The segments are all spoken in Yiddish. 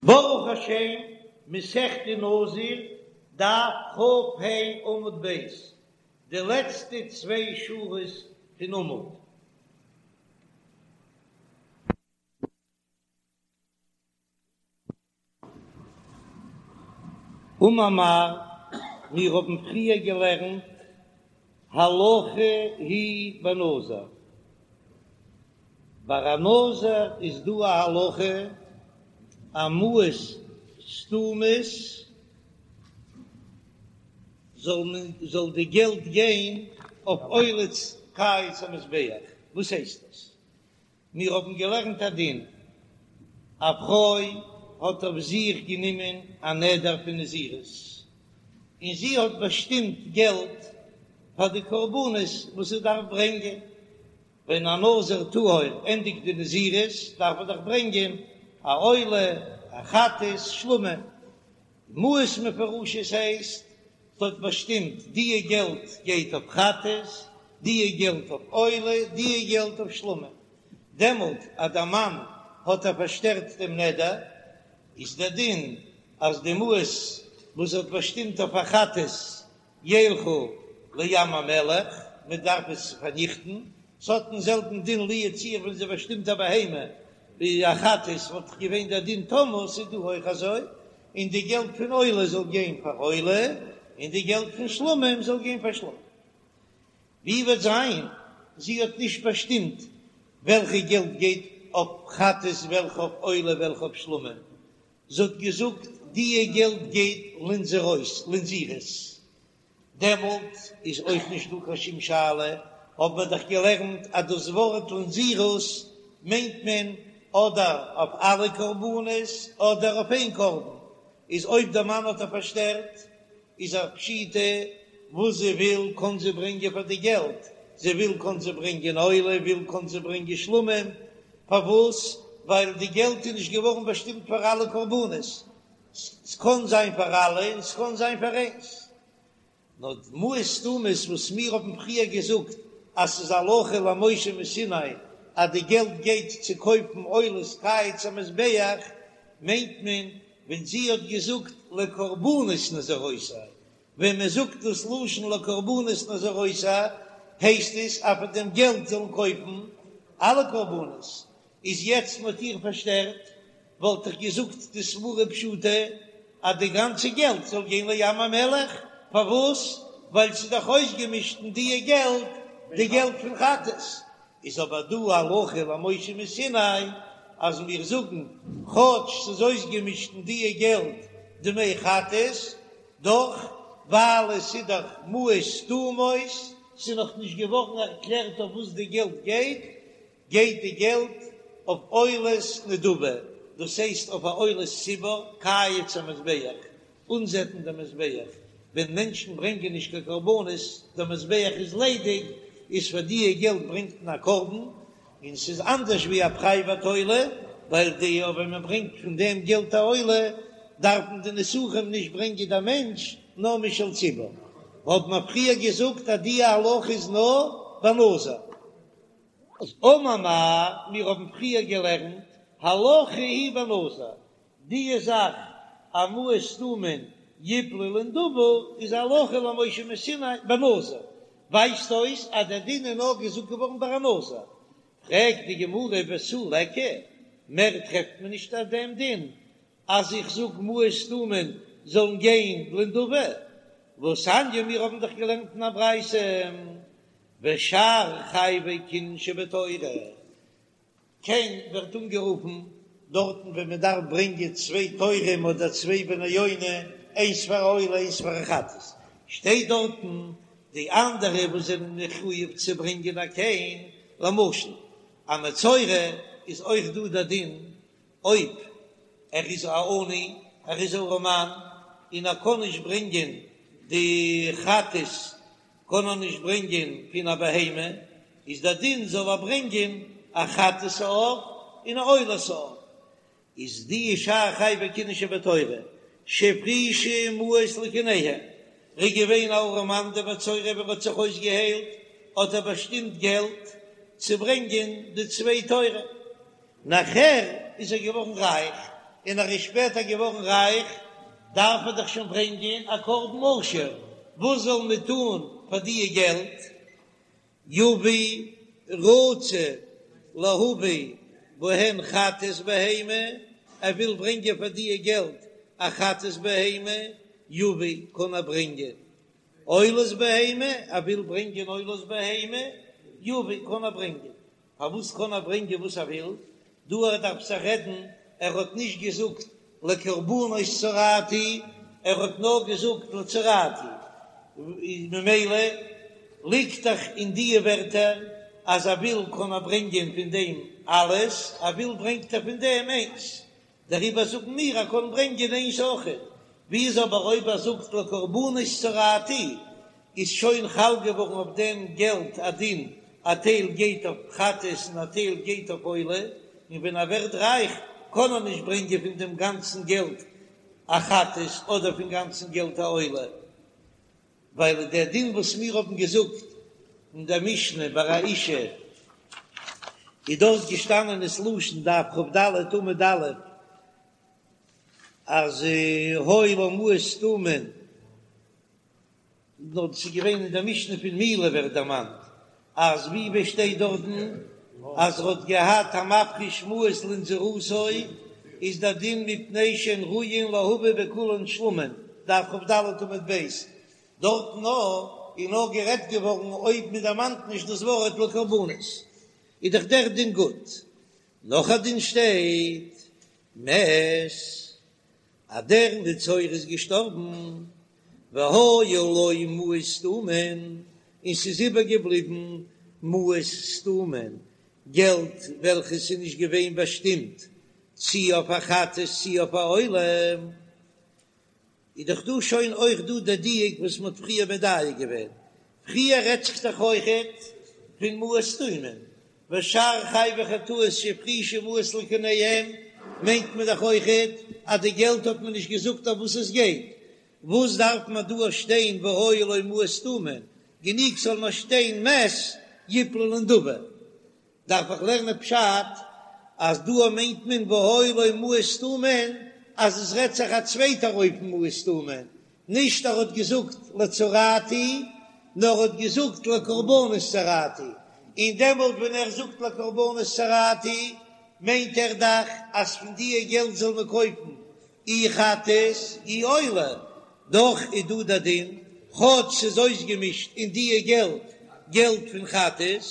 ברוך השם, מסכת נזיר, דף כ"ה עמוד ב', די לעצטע צוויי שורות פון עמוד. אמר מר, מיר האבן פריער געלערנט הלכה היא בנזיר. ביי א נזיר איז דא א הלכה אז מעות סתומות זאל מען זאל די געלט גיין אויף עולת קיץ המזבח, וואס הייסט דאס? מיר האבן געלערנט א דין, א פרוי האט אויף זיך גענומען א נדר פון נזירות, און זי האט באשטימט געלט פאר די קרבנות וואס זי דארף ברענגען, ווען א נזיר טהור ענדיגט די נזירות דארף ער דאך ברענגען א עולה, א חטאת, שלמים. מעות מפורשות הייסט, ס'האט באשטימט דיע געלט גייט אויף חטאת, דיע געלט אויף עולה, דיע געלט אויף שלמים. דעמאלט אז דער מאן האט איר פארשטערט דעם נדר, איז דער דין אז די מעות וואס זי האט באשטימט אויף א חטאת ילכו לים המלח, מען דארף עס פארניכטן, ס'האט דעם זעלבן דין לו יצוייר ווען זי באשטימט א בהמה ווי א חטאת וואלט דאך געווען דער דין תמות, איז דא אויך אזוי, און די געלט פון עולה זאל גיין פאר עולה, און די געלט פון שלמים זאל גיין פאר שלמים. ווי וועט זיין זי האט נישט באשטימט וועלכע געלט גייט אויף חטאת וועלכע אויף עולה וועלכע אויף שלמים, זי האט געזאגט דיע געלט גייט לנזירות לנזירות, דעמאלט איז אויך נישט דא קיין שום שאלה, האבן מיר דאך געלערנט אז דאס ווארט לנזירות מיינט מען אדער אויף אלע קרבנות אדער אויף איין קרבן, איז אויב דער מאן האט איר פארשטערט איז א פשיטא וואס זי וויל קען זי ברענגען פאר די געלט, זי וויל קען זי ברענגען עולה, וויל קען זי ברענגען שלמים, פארוואס? ווייל די געלט איז נישט געווארן באשטימט פאר אלע קרבנות, ס'קען זיין פאר אלע און ס'קען זיין פאר איינס. נאר די מעות סתומות וואס מיר האבן פריער געזאגט אז ס'איז הלכה למשה מסיני אז די געלט גייט צו קויפן עולת קיץ המזבח, מיינט מען ווען זי האט געזאגט לקרבנות נזירותי, ווען מען זאגט דאס לשון לקרבנות נזירותי הייסט עס אז פון דעם געלט זאלן קויפן אלע קרבנות, איז יעצט מען האט איר פארשטערט וואלט איך געזאגט די סברה פשוטה אז די גאנצע געלט זאל גיין לים המלח, פארוואס? ווייל ס'איז דאך אויסגעמישט אין דיע געלט די געלט פון חטאת, איז אבער דא הלכה למשה מסיני אז מיר זאגן כאטש ס'איז אויסגעמישט אין דיע געלט דמי חטאת, דאך ווייל עס איז דאך מעות סתומות, ס'איז נאך נישט געווארן ערקלערט אויף וואס די געלט גייט, גייט די געלט אויף עולת נדבה, דאס הייסט אויף א עולת ציבור, קיץ המזבח, אנזעטן דעם מזבח, ווען מענטשן ברענגען נישט קיין קרבנות, דער מזבח איז ליידיג, איז פאר דיע געלט ברענגט מען א קרבן, און ס'איז אנדערש ווי א פרייוואט עולה, ווייל די ווען מען ברענגט פון דעם געלט א עולה, דארפן די נסכים נישט ברענגען דער מענטש, נאר משל ציבור. האט מען פריער געזאגט אז דיע הלכה איז נאר ביי נזיר. אמר מר, מיר האבן פריער געלערנט, הלכה היא בנזיר, די זאך אז מעות סתומין יפלו לנדבה איז הלכה למשה מסיני בנזיר, ווייזט אויס אז דער דין איז נאר געזאגט געווארן ביי א נזיר, פרעגט די גמרא ותו ליכא, מער טרעפט מען נישט אויף דעם דין אז איך זאג מעות סתומין זאלן גיין לנדבה, והתניא מיר האבן דאך געלערנט אין א ברייתא ושאר חייבי קינין שבתורה, קן ווערט אנגערופן דארטן ווען מען דארף ברענגען צוויי תורים אדער צוויי בני יונה, איינס פאר א עולה איינס פאר א חטאת, שטייט דארטן די אנדערע וואס זענען מחויב צו ברענגען א קן, למשל א מצורע איז אויך דא דער דין אויב ער איז א עני, ער איז ארעמאן און ער קען נישט ברענגען די חטאת קען ער נישט ברענגען פון א בהמה, איז דער דין זאל ער ברענגען א חטאת העוף און א עולת העוף, איז די שאר חייבי קינין שבתורה שהפרישו מעות לקיניהם, ר'איז געווען א ארעמאן דער מצורע ווען ר'האט זיך אויסגעהיילט האט ער באשטימט געלט צו ברענגען די צוויי תורים, נאכער איז ער געווארן רייך. און ער איז שפעטער געווארן רייך, דארף ער דאך שוין ברענגען א קרבן עשיר, וואס זאל מען טון פאר דיע געלט? יביא רצה להביא בהן חטאת בהמה, ער וויל ברענגען פאר דיע געלט א חטאת בהמה, יביא קען ער ברענגען עולת בהמה, ער וויל ברענגען עולת בהמה, יביא קען ער ברענגען. פארוואס קען ער ברענגען וואס ער וויל? דא ער דארף זיך רעדן, ער האט נישט געזאגט לקרבנות צרעתי, ער האט נאר געזאגט לצרעתי, ממילא ליגט דאך אין דיע ווערטער אז ער וויל קען ער ברענגען פון דעם אלעס, ער וויל ברענגט ער פון דעם איינס, דעריבער זאגן מיר ער קען ברענגען איינס אויכעט, ווי איז אבער אויב ער זאגט לקרבנות צרעתי איז שוין חל געווארן אויף דעם געלט א דין א טייל גייט אויף חטאת און א טייל גייט אויף עולה, און ווען ער ווערט רייך קען ער נישט ברענגען פון דעם גאנצן געלט א חטאת אדער פון גאנצן געלט א עולה. ווייל דער דין וואס מיר האבן געזאגט אין דער משנה ביי א אישה איז דארט געשטאנען ס'לשון דף כ"ד עמוד א' אז היו לה מעות סתומין, נאר דאס איז געווען אין דער משנה פון מילה ווערט דערמאנט אז ווי ווי שטייט דארטן אז ער האט געהאט המפריש מעות לנזירותו איז דער דין מפני שהן ראויין להביא בכולן שלמים, דף כ"ד עמוד ב', דארטן נאר איז נאר גערעדט געווארן אויב מען דערמאנט נישט דאס ווארט לקרבנות איז דאך דער דין גוט, נאך א דין שטייט מת. אז דער מצורע איז געשטארבן, והיו לו מעות סתומין, און ס'איז איבערגעבליבן מעות סתומין, געלט וועלכעס איז נישט געווען באשטימט צי אויף א חטאת צי אויף א עולה, איז דאך דא שוין אויך דא דער דיוק וואס מ'האט פריער מדייק געווען, פריער רעדט זיך דאך אויכעט פון מעות סתומין, ושאר חייבי חטאות שהפרישו מעות לקוניהם, מיינט מען דאך אויכעט אז די געלט האט מען נישט געזאגט אויף וואס עס גייט, וואס דארף מען דא שטיין והיו לו מעות סתומין, גענוג זאל נאר שטיין מת יפלו לנדבה. דארף איך לערנען פשט אז דא מיינט מען והיו לו מעות סתומין אז עס רעדט זיך א צווייטער אופן מעות סתומין, נישט ער האט געזאגט לצרעתי נאר ער האט געזאגט לקרבנות צרעתי, און דעמאלט ווען ער זאגט לקרבנות צרעתי מיינט ער דאך אז פון דיע געלט זאל מען קויפן אי חטאת אי עולה, דאך איז דא דער דין כאטש ס'איז אויסגעמישט אין דיע געלט געלט פון חטאת,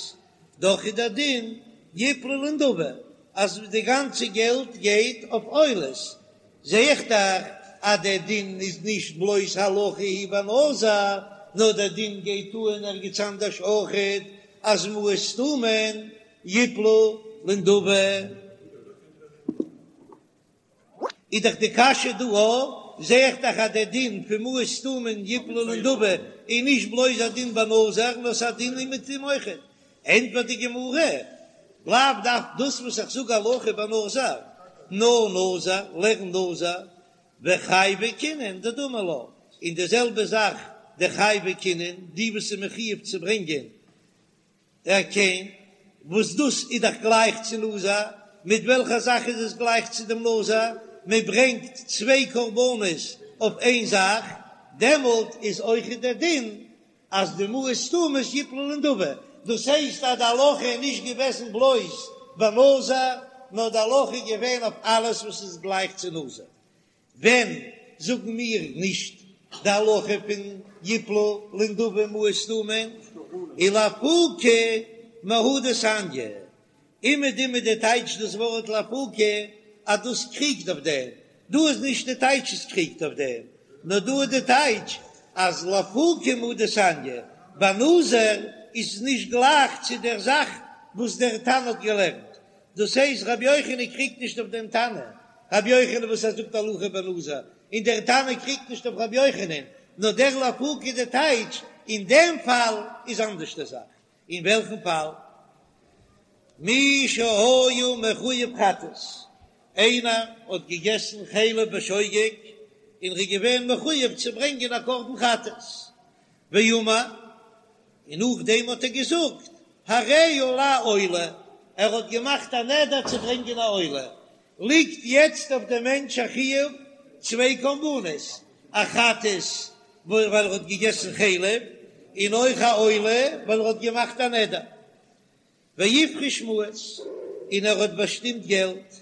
דאך איז דער דין יפלו לנדבה אז די גאנצע געלט גייט אויף עולות, זע איך דאך אז דער דין איז נישט בלויז הלכה היא בנזיר, נאר דער דין גייט אן ערגעץ אנדערש אויכעט אז מעות סתומין יפלו לנדבה. איז דאך די קשיא דא א, זע איך דאך אז דער דין פון מעות סתומין יפלו לנדבה איז נישט בלויז א דין בנזיר נאר ס'איז א דין אומעטום אויכעט. ענטפערט די גמרא, לאו דווקא דאס וואס איך זאג הלכה בנזיר, נאר נזיר, לערן נזיר, וחייבי קינין דדמי לה, און די זעלבע זאך די חייבי קינין, די וואס איז מחויב צו ברענגען א קן, וואס דאס איז דאך גלייך צו נזיר, מיט וועלכע זאך איז עס גלייך צו דעם נזיר? מען ברענגט צוויי קרבנות אויף איין זאך, דעמאלט איז אויך דער דין אז די מעות סתומות יפלו לנדבה, דאס הייסט אז די הלכה איז נישט געוועזן בלויז ביי נזיר, נאר די הלכה איז געווען אויף אלעס וואס איז גלייך צו נזיר. ווען זאגן מיר נישט די הלכה פון יפלו לנדבה מעות סתומין ולאפוקי מהא דתניא, אומעטום איז די טייטש דאס ווארט לאפוקי אז דאס קריגט אויף דעם, דא איז נישט די טייטש עס קריגט אויף דעם, נאר דא איז די טייטש אז לאפוקי מהא דתניא, ביי נזיר איז עס נישט גלייך צו דער זאך וואס דער תנא האט געלערנט, דאס הייסט רבי יוחנן קריגט נישט אויף דעם תנא, רבי יוחנן וואס ער זאגט הלכה בנזיר, און דער תנא קריגט נישט אויף רבי יוחנן, נאר דער לאפוקי די טייטש, אין דעם פאל איז אנדערש די זאך, אין וועלכן פאל? מי שהיה מחויב חטאת, איינער האט געגעסן חלב בשוגג און ר'איז געווען מחויב צו ברענגען א קרבן חטאת, ואמר, און נאכדעם האט ער געזאגט הרי עלי עולה, ער האט געמאכט א נדר צו ברענגען א עולה. ליגט יעצט אויף דעם מענטש א חיוב צוויי קרבנות, א חטאת ווייל ער האט געגעסן חלב, און אויך א עולה ווייל ער האט געמאכט א נדר. והפריש מעות, און ער האט באשטימט געלט,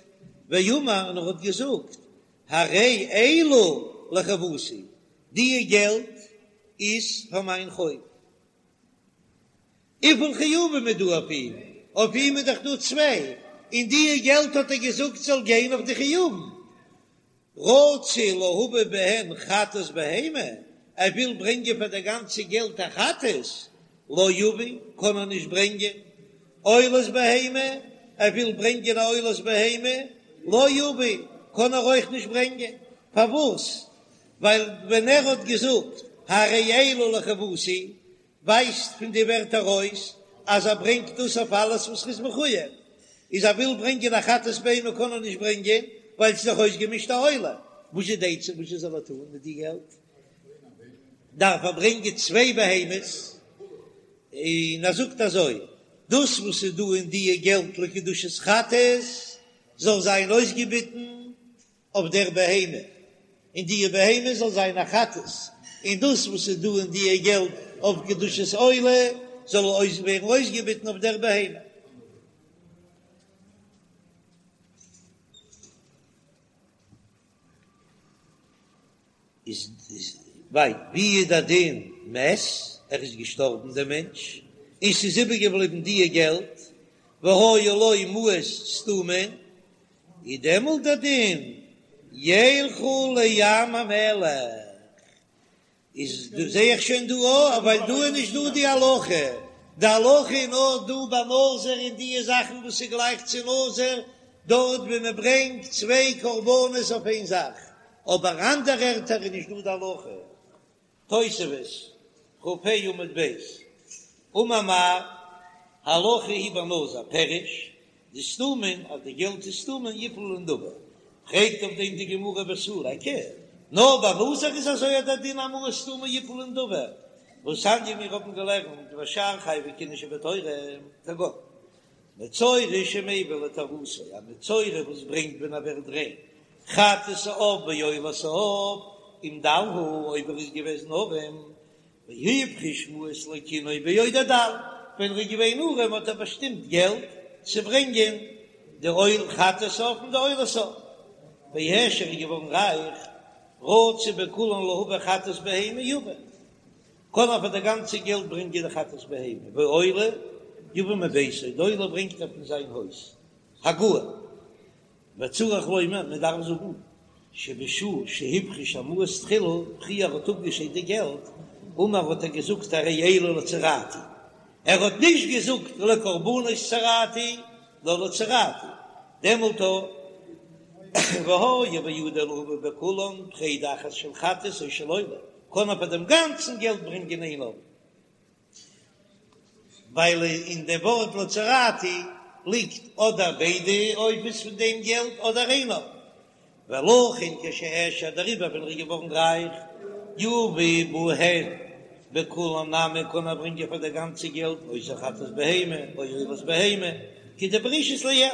ואמר, און ער האט געזאגט, הרי אלו לחובתי, דיע געלט איז פאר מיין חוב. וויפיל חיובים איז דא אויף אים? אויף אים איז דאך דא צוויי, און דיע געלט האט ער געזאגט זאל גיין אויף די חיובים. רצה להביא בהן חטאת בהמה, ער וויל ברענגען פאר די גאנצע געלט א חטאת, לא יביא, קען ער נישט ברענגען, עולת בהמה, ער וויל ברענגען א עולת בהמה, לא יביא, קען ער אויך נישט ברענגען, פארוואס? ווייל ווען ער האט געזאגט הרי אלו לחובתי, ווייזט פון די ווערטער ארויס אז ער ברענגט דאס אויף אלעס וואס ר'איז מחוייב, איז ער וויל ברענגען א חטאת בהמה קען ער נישט ברענגען ווייל ס'איז דאך אויסגעמישט א עולה, וואס איז די עצה וואס זאל ער טון מיט די געלט? דארף ער ברענגען צוויי בהמות, און ער זאגט אזוי, דאס וואס איז דא אין דיע געלט לקדושת חטאת זאל זיין אויסגעביטן אויף דער בהמה, און די בהמה זאל זיין א חטאת, און דאס וואס איז דא אין דיע געלט אויף קדושת עולה זאל אויס ווערן אויסגעביטן אויף דער בהמה. איז ווייל ווי איז דער דין מת, ער איז געשטארבן דער מענטש, און ס'איז איבערגעבליבן דיע געלט, והיו לו מעות סתומין, איז דעמאלט דער דין ילכו לים המלח, איז דא זעה איך שוין דא אויך, ווייל דא איז נישט דא די הלכה, די הלכה איז נאר דא ביי נזיר און דיע זאכן וואס איז גלייך צו נזיר, דארט ווי מען ברענגט צוויי קרבנות אויף איין זאך, אבער אנדערע ערטער איז נישט דא די הלכה. תוספות, כ"ה עמוד ב', אמר מר, הלכה היא בנזיר, פירוש, דסתומין, אז די געלט איז סתומין יפלו לנדבה, פרעגט אויף דעם די גמרא ותו ליכא, נאר ביי נזיר איז אזוי אז דער דין אז מעות סתומין יפלו לנדבה, והתניא מיר האבן געלערנט ושאר חייבי כהונה שבתורה, כגון מצורע שמביא לטהרתו, א מצורע וואס ברענגט ווען ער ווערט ריין, חטאת העוף ועולת העוף, אם דל הוא, אויב ער איז געוועזן ארעם, והפריש מעות לקינו בעודו דל, ווען ער איז געווען ארעם האט ער באשטימט געלט צו ברענגען די עול חטאת העוף און די עולת העוף, והעשיר איז געווארן רייך, רצה בכולן להביא חטאת בהמה יביא. קען ער פאר די גאנצע געלט ברענגען די חטאת בהמה, ועולה יביא מביתו, די עולה ברענגט ער פון זיין הויז, הגהה, וצריך לומר, מען דארף זאגן, שבשעה שהפריש המעות תחילה, פריער האט אפגעשיידט די געלט, אמר האט ער געזאגט הרי אלו לצרעתי, ער האט נישט געזאגט לקרבנות צרעתי, נאר לצרעתי, דעמאלט והיה בידו להביא בכולן פרידה אחת של חטאת או של עולה, קען ער פאר דעם גאנצן געלט ברענגען איין עולה, ווייל אין די ווארט לצרעתי ליגט אדער ביידע עופות פון דעם געלט אדער איין עוף, ולכן כשהעשיר דעריבער ווען ער איז געווארן רייך יביא בהן בכולן נמי קען ער ברענגען פאר די גאנצע געלט אותה חטאת בהמה או עולת בהמה כדפרישית לעיל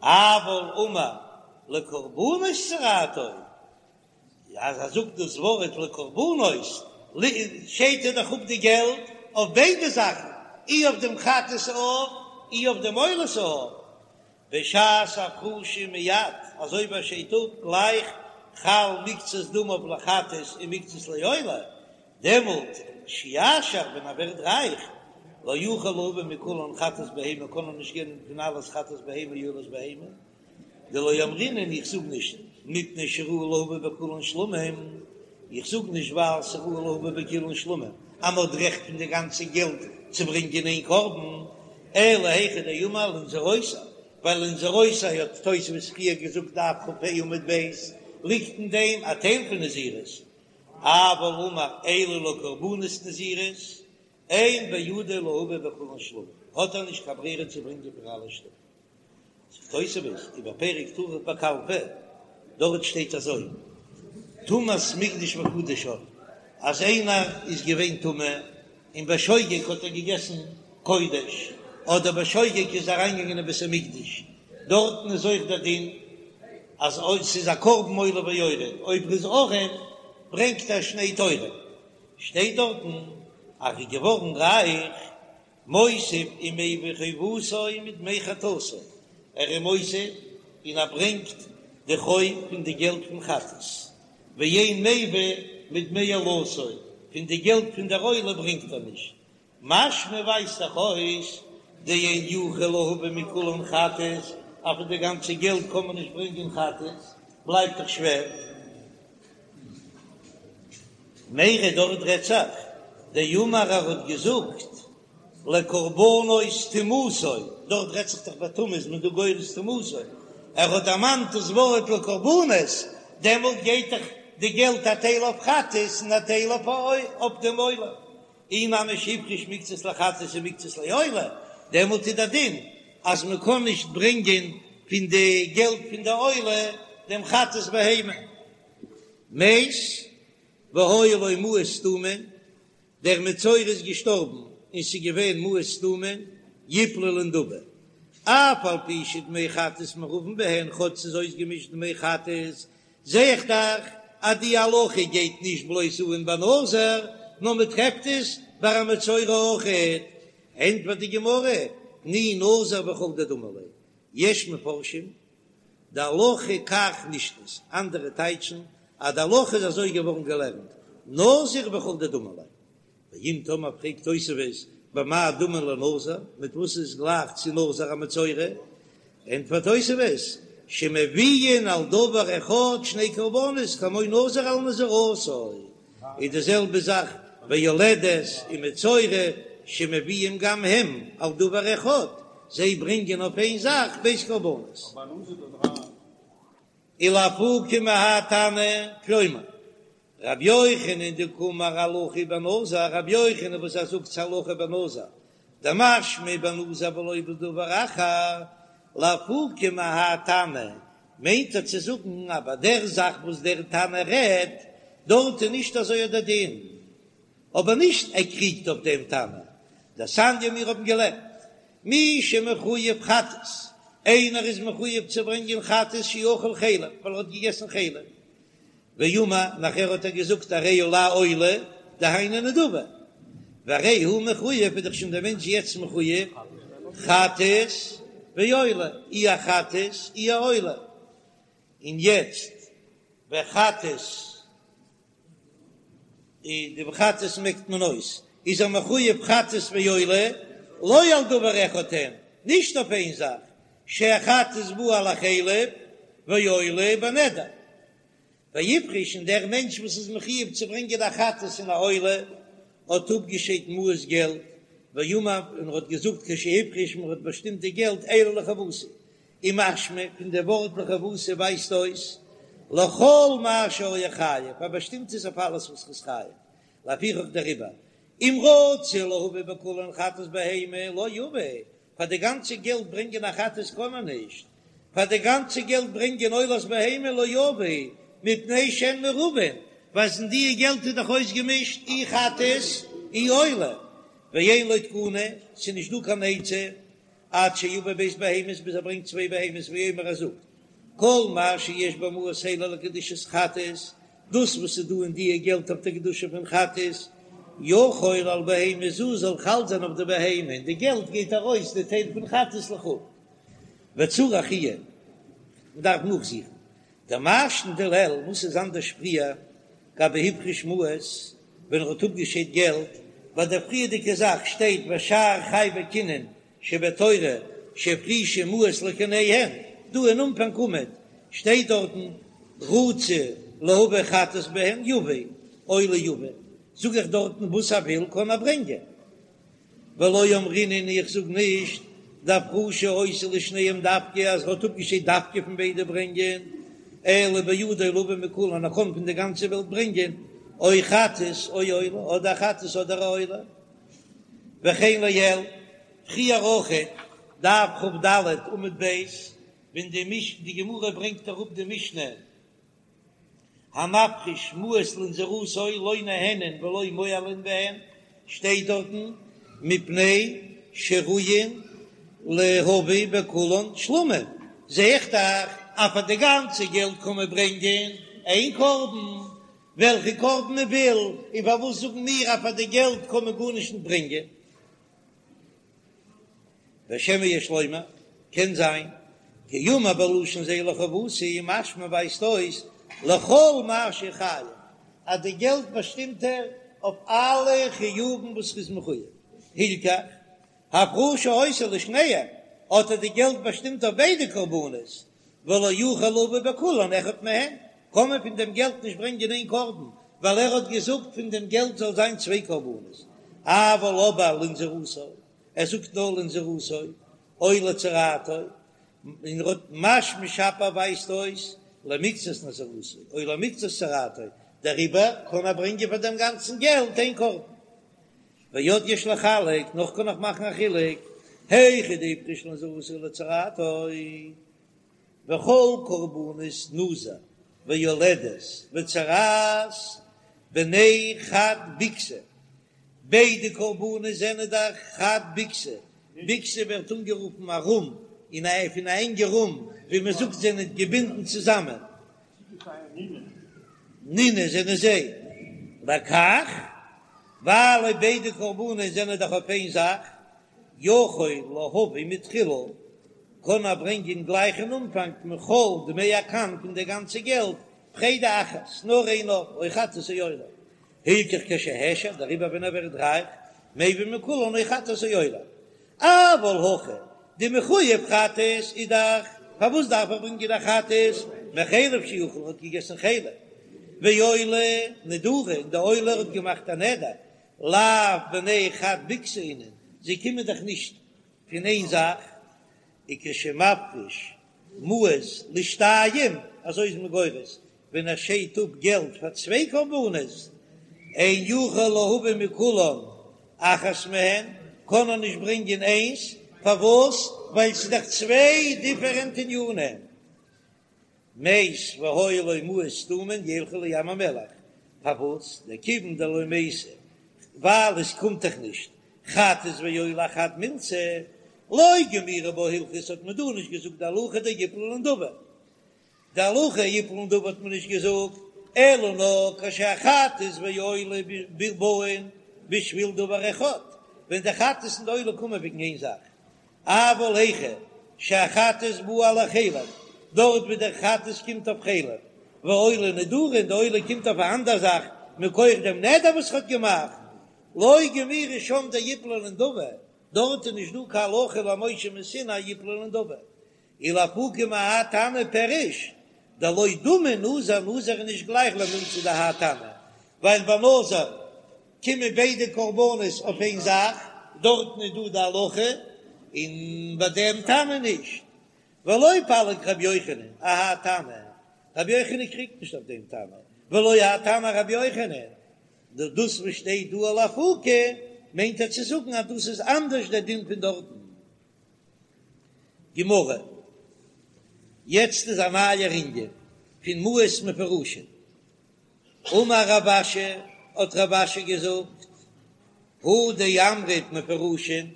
אבל אמר לקרבנות צרעתו אז ער זאגט דאס ווארט לקרבנות שיידט ער דאך אפ די געלט אויף ביידע זאכן אי אויף דעם חטאת העוף אי אויף דעם עולת העוף בשעת הפרשה מיד, אזוי ווי ער שיידט אפ גלייך חל מקצת דמיו לחטאת ומקצת לעולה, דעמאלט כשיעשיר ווען ער ווערט רייך, לא יוכל להביא מכולן חטאת בהמה קען ער נישט געבן פון אלעס חטאת בהמה ועולת בהמה, דלא אמרינן איך זאג נישט מפני שראוי להביא בכולן שלמים, איך זאג נישט ווייל ס'ראוי להביא בכולן שלמים אז מ'האט רעכט פון די גאנצע געלט צו ברענגען איין קרבן, אלא היכא דאמר לנזירותי, ווייל לנזירותי האט תוספות פריער געזאגט דף כ"ה עמוד ב', ליגט אין דעם א טייל פון נזירות, אבל אמר אלו לקרבנות נזירות, אין בידו להביא בכולן שלמים, האט ער נישט קיין ברירה צו ברענגען פון אלע שלמים. זאגט תוספות ובפרק טרף בקלפי, דארט שטייט אזוי, טומאת מקדש וקדשיו, אז איינער איז געווען טמא און בשוגג האט ער געגעסן קודש, אדער בשוגג איז אריינגעגאנגען אין בית המקדש, דארטן איז אויך דער דין אז אויב ס'איז א קרבן עולה ויורד, אויב ר'איז ארעם ברענגט ער שני תורים, שטייט דארטן אז ר'איז געווארן רייך, מוסיף ומביא חובתו מדמי חטאתו, ער איז מוסיף און ער ברענגט די חוב פון די געלט פון חטאת, ואין מביא מדמי עולתו, פון די געלט פון דער עולה ברענגט ער נישט, משמע ווייזט דאך אויס דאין יכול להביא מכולן חטאת, אז פון די גאנצע געלט קען מען נישט ברענגען חטאת, בלייבט דאך שווער. מיירי דארט רעדט זיך, דאמר ער האט געזאגט לקרבנות טומאתו, דארט רעדט זיך דאך ביי טומאה איז מען דא גורס טומאתו, ער האט דערמאנט דאס ווארט לקרבנות, דעמאלט גייט דאך די געלט א טייל אויף חטאת און א טייל אויף דעם עולה. אי נמי שהפריש מקצת לחטאת ומקצת לעולה, דעמאלט איז דער דין אז מען קען נישט ברענגען פון די געלט פון די עולה דעם חטאת בהמה. מת והיו לו מעות סתומין, דער מצורע איז געשטארבן און ס'איז געווען מעות סתומין, יפלו לנדבה, אף על פי שדמי חטאת מעורבין בהן, כאטש ס'איז אויסגעמישט דמי חטאת, זע איך דאך אז די הלכה גייט נישט בלויז אן ביי נזיר, נאר מען טרעפט עס ביי א מצורע אויכעט. ענטפערט די גמרא, תני נזיר וכל דדמי ליה, יש מפרשים דהלכה כך נשנית, אנדערע טייטשן אז די הלכה איז אזוי געווארן געלערנט, נזיר וכל דדמי ליה. ואם תאמר פרעגט תוספות במה דמין לנזיר, מיט וואס איז גלייך צו נזיר א מצורע? ענטפערט תוספות שמביאין על דבר אחד שני קרבנות כמו נזיר על נזירותו, איז די זעלבע זאך ביולדת און מצורע שמביאים גם הם על דבר אחד, זיי ברענגען אויף איין זאך ב' קרבנות. ולאפוקי מהאי תנא, כלומר, רבי יוחנן דקאמר הלכה בנזיר, רבי יוחנן וואס ער זאגט ס'הלכה בנזיר, דמשמע בנזיר ולא בדבר אחר, לאפוקי מהאי תנא, מיינט ער צו זאגן אז ביי דער זאך וואס דער תנא רעדט דארט איז נישט אזוי דער דין, אבער נישט ער קריגט אויף דעם תנא, דתניא מיר האבן געלערנט מי שמחויב חטאת, איינער איז מחויב צו ברענגען חטאת שאכל חלב ווייל ער האט געגעסן חלב, ואמר, נאכער האט ער געזאגט הרי עלי עולה, דהיינו נדבה, והרי הוא מחויב, איז דאך שוין דער מענטש יעצט מחויב, חטאת ועולה, אי א חטאת אי א עולה, און יעצט וחטאת, די וחטאת מעקט מען אויס, איז ער מחויב חטאת ועולה, לא על דבר אחד הן, נישט אויף איין זאך, שהחטאת באה על החלב ועולה בנדר. והפריש און דער מענטש וואס איז מחויב צו ברענגען א חטאת און א עולה האט אפגעשיידט מעות געלט, ואמר און ער האט געזאגט כשהפריש מען האט באשטימט די געלט אלו לחובתי, און משמע פון די ווארט לחובתי ווייזט אויס לכל מה שהיה חייב, ער באשטימט עס אויף אלעס וואס איז חייב, לפיכך דעריבער אם רצה להביא בכולן חטאת בהמה לא יביא, פאר די גאנצע געלט ברענגען א חטאת קען מען נישט, פאר די גאנצע געלט ברענגען עולת בהמה לא יביא, מפני שהן מעורבין, ווייל אין די געלט איז דאך אויסגעמישט אי חטאת אי עולה, ואין לו תקנה, ס'איז נישט דא קיין עצה, עד שיביא ב' בהמות ביז ער ברענגט צוויי בהמות ויאמר ער זאגט כל מה שיש במעות האלה לקדושת חטאת, דאס וואס איז דא אין דיע געלט אויף די קדושה פון חטאת, יחול על בהמה זו זאל חל זיין אויף די בהמה, און די געלט גייט ארויס די טייל פון חטאת לחולין. וצריך עיון, מען דארף נאכזוכן דמאי שנא דלעיל, וואס איז אנדערש פריער גבי הפריש מעות ווען ער האט אפגעשיידט געלט, ביי דער פריערדיגע זאך שטייט ושאר חייבי קינין שבתורה שהפרישו מעות לקיניהן, דא אין אנפאנג עמוד שטייט דארטן רצה להביא חטאת בהן יביא עולה יביא, זאג איך דארטן וואס ער וויל קען ער ברענגען, ולא אמרינן איך זאג נישט דהפרשה היתה לשניהם דווקא אז ער האט אפגעשיידט דווקא פון ביידע ברענגען, אלא בידו להביא מכולן ער קען פון די גאנצע וועלט ברענגען או חטאת או עולה אדער חטאת אדער א עולה. וכן לעיל, פריער אויכעט, דף כ"ד עמוד ב', ווען די מש די גמרא ברענגט אראפ די משנה המפריש מעות לנזירותו לא נהנין ולא מועלין בהן, שטייט דארטן מפני שראויין להביא בכולן שלמים. זע איך דאך אז פאר די גאנצע געלט קען מען ברענגען איין קרבן, וועלכע קרבן מען וויל, און פארוואס זאגן מיר אז פאר די געלט קען מען גארנישט נישט ברענגען? ושמא יש לומר, קען זיין, כי אמר בלשון זה לחובתי, משמע ווייזט אויס לכל מה שחייב, אז די געלט באשטימט ער אויף אלע חיובים וואס ר'איז מחויב, הלכך, הפרשה היתה לשניהם, האט ער די געלט באשטימט אויף ביידע קרבנות, ולא יוכל להביא בכולן אחד מהן, קען מען פון דעם געלט נישט ברענגען איין קרבן, ווייל ער האט געזאגט פון דעם געלט זאל זיין צוויי קרבנות, אבל אבער לנזירותו, ער זאגט נאר לנזירותו, או לצרעתו, און ער האט משמע שפיר ווייזט אויס למקצת נזירותו, או למקצת צרעתו, דעריבער קען ער ברענגען פאר דעם גאנצן געלט איין קרבן. ועוד יש לחלק, נאך קען איך מאכן א חילוק, היכא דהפריש לנזירותו ולצרעתו, וכל קרבנות נזיר ויולדת וצרעת בני חד ביקתא, ביידע קרבנות זענען דאך חד ביקתא, ביקתא ווערט אנגערופן א רום, אין א פון א ענגע רום, ווי מען זאגט זענען געבינדן צוזאמען. נינהו זענען זיי לכך, ווייל אויב ביידע קרבנות זענען דאך אויף איין זאך, יכול להביא מתחילה, קען ער ברענגען גלייך אין אנפאנג מכל דמי הקן פון די גאנצע געלט, פרידה אחת, נאר איין עוף, או חטאת או עולה. הלכך כשהעשיר, דעריבער ווען ער ווערט רייך, מביא מכולן או חטאת או עולה. אבל הכא, דמחויב חטאת איז דאך, פארוואס דארף ער ברענגען א חטאת? מחלב שאכל האט געגעסן חלב, ועולה נדרה, און די עולה האט געמאכט א נדר, לאו בני חד ביקתא אינון, זיי קומען דאך נישט פון איין זאך, וכשמפריש מעות לשתיים, אזוי איז מען גורס, ווען ער שיידט אפ געלט פאר צוויי קרבנות, אין יכול להביא מכולן אחת מהן, קען ער נישט ברענגען איינס, פארוואס? ווייל ס'איז דאך צוויי דיפערענט ענינים. מת והיו לו מעות סתומין ילכו לים המלח, פארוואס? דכיון דלא מייתי, ווייל עס קומט דאך נישט חטאת ועולה אחד מילתא, לא גמירי בה הלכתא האט מען דא נישט געזאגט די הלכה דיפלו לנדבה, די הלכה יפלו לנדבה האט מען נישט געזאגט, אלא נאר כשהחטאת והעולה באין בשביל דבר אחד, ווען די חטאת און די עולה קומען וועגן איין זאך, אבל היכא שהחטאת באה על החלב, דארט ווי דער חטאת קומט אויף חלב, והעולה נדרה און די עולה קומט אויף א אנדער זאך מכח דעם נדר וואס ער האט געמאכט, לא גמירי שם דיפלו לנדבה, דארט איז נישט דא קיין הלכה למשה מסיני יפלו לנדבה, ולאפוקי מהאי תנא פירוש דלא דמי נזיר, נזיר איז נישט גלייך למילתא דהאי תנא, ווייל ביי נזיר קומען ביידע קרבנות אויף איין זאך, דארטן איז דא די הלכה, און ביי דעם תנא נישט. ולא פליג רבי יוחנן אהאי תנא, רבי יוחנן קריגט נישט אויף דעם תנא, ולא האי תנא ארבי יוחנן, דאס וואס שטייט דא לאפוקי מיינט ער צו זאגן אז דאס איז אנדערש דער דין פון דארטן. גמרא, יעצט איז א נייער ענין פון מעות מפורשין. אמר רב אשי, האט רב אשי געזאגט, הא דאמרת מפורשין,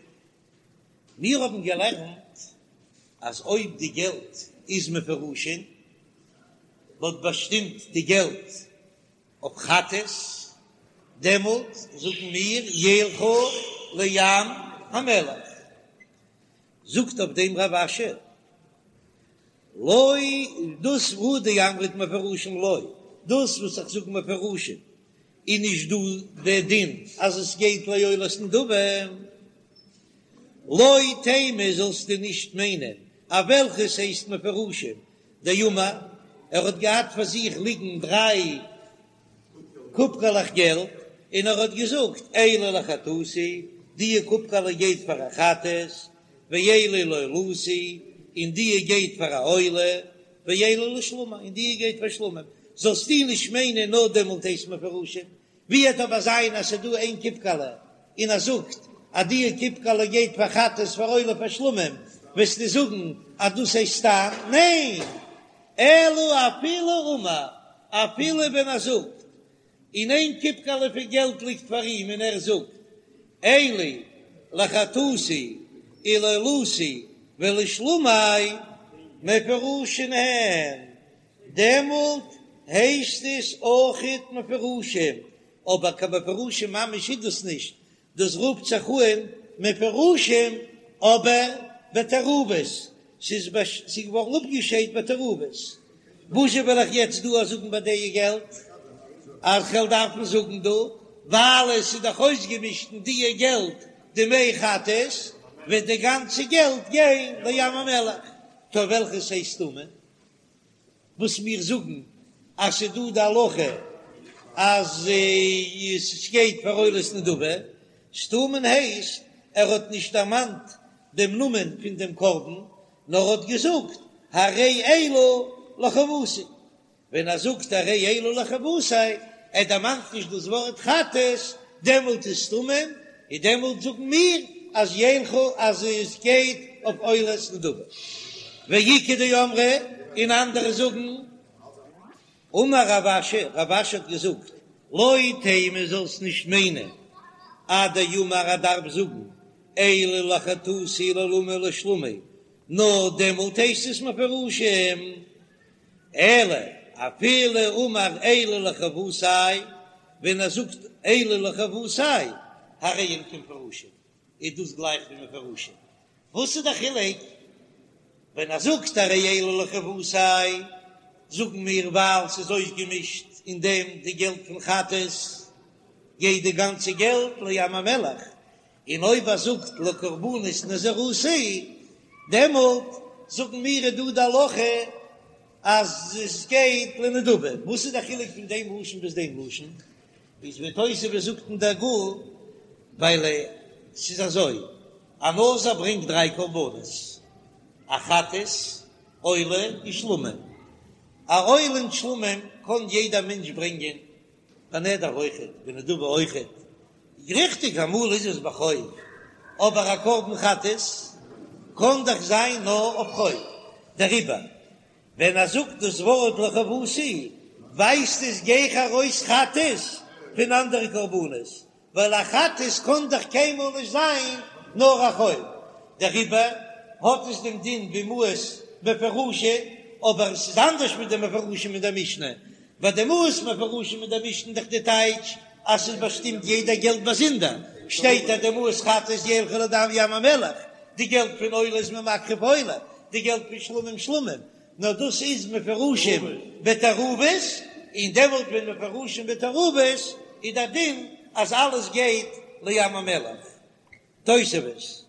מיר האבן געלערנט אז אויב די געלט איז מפורשין, מ'האט באשטימט די געלט אויף חטאת, דעמאלט זאגן מיר ילכו לים המלח. זאגט אויף דעם רב אשי, לא, דאס הא דאמרת מפורשין לא, דאס וואס איך זאג מפורשין איז נישט דא דער דין אז עס גייט לעולת נדבה, לא תימא זאלסטו נישט מיינען אז וועלכעס הייסט מפורשין דאמר, ער האט געהאט פאר זיך ליגן דריי קופקעלעך געלט, און ער האט געזאגט, אלו לחטאתי, דיע קופקעלע גייט פאר א חטאת, ואלו לעולתי, און דיע גייט פאר א עולה, ואלו לשלמי, און דיע גייט פאר שלמים. זאלסטו נישט מיינען נאר דעמאלט הייסט מפורשים, ווי וועט אבער זיין אז ס'איז דא איין קופקעלע און ער זאגט אז דיע קופקעלע גייט פאר חטאת פאר עולה פאר שלמים, וועסטו זאגן אז דאס הייסט סתם? ניין! אלא אפילו אמר, אפילו ווען ער זאגט, און איין קופקעלע פון געלט ליגט פאר אים און ער זאגט, אלו לחטאתי ולעולתי ולשלמי. מפורשין הן, דעמאלט הייסט עס אויכעט מפורשים, אבער קיין מפורשים ממש איז דאס נישט, דאס רופט זיך אן מפורשים אבער בתערובות, ס'איז געווארן אפגעשיידט בתערובות. וואזשע וועל איך יעצט דא זאגן ביי די געלט? אז כ'וועל דארפן זאגן דא, ווייל עס איז דאך אויסגעמישט אין די געלט די מי חטאת, וועט די גאנצע געלט גיין לים המלח. טא וועלכעס הייסט סתומים? וואס מיר זאגן אז ס'איז דא די הלכה אז עס גייט פאר עולת נדבה, סתומין הייסט ער האט נישט דערמאנט דעם נאמען פון דעם קרבן, נאר האט געזאגט הרי אלו לחובתי, ווען ער זאגט הרי אלו לחובתי, ער דערמאנט נישט דאס ווארט חטאת, דעמאלט איז סתומים, און דעמאלט זאגן מיר אז ילכו אז עס גייט אויף עולת נדבה. ואיכא דאמרי, און אנדערע זאגן, אמר רב אשי, רב אשי האט געזאגט, לא תימא זאלסט נישט מיינען, עד דאמר ער דארף זאגן, אלו לחטאתי לעולתי לשלמי, נאר דעמאלט הייסט עס מפורשים. אלא אפילו אמר אלו לחובתי, ווען ער זאגט אלו לחובתי, הרי הן כמפורשים, איז דאס גלייך ווי מפורשים. וואס איז די חילוק? ווען ער זאגט הרי אלו לחובתי, זאגן מיר ווייל ס'איז אויסגעמישט אין דעם די געלט פון חטאת, גייט די גאנצע געלט לים המלח, און אויב ער זאגט לקרבנות נזירותי, דעמאלט זאגן מיר איז דא די הלכה אז עס גייט לנדבה. וואס איז די חילוק פון דעם לשון ביז דעם לשון? איז ווי תוספות זאגט אין דער גמ', ווייל ס'איז אזוי, א נזיר ברענגט דריי קרבנות, א חטאת, עולה און שלמים. א עולה און שלמים קען יעדער מענטש ברענגען, בנדר אויכעט, בנדבה אויכעט, ריכטיג אמאל איז עס בחוב, אבער א קרבן חטאת קען דאך זיין נאר אויף חוב, דעריבער ווען ער זאגט דאס ווארט לחובתי ווייזט עס גיכער ארויס חטאת פון אנדערע קרבנות, ווייל א חטאת קען דאך קיינמאל נישט זיין נאר א חוב, דעריבער האט עס דעם דין ווי מעות מפורשין, אבער עס איז אנדערש מיט די מפורשים אין דער משנה, ביי די מעות מפורשים אין דער משנה איז דאך די טייטש אז ס'איז באשטימט יעדע געלט באזונדער, שטייט אז די מעות חטאת ילכו לים המלח, די געלט פון עולה איז מען מקריב עולה, די געלט פון שלמים שלמים, נאר דאס איז מפורשים בתערובות, און דעמאלט ווען מפורשים בתערובות איז דער דין אז אלעס גייט לים המלח. תוספות,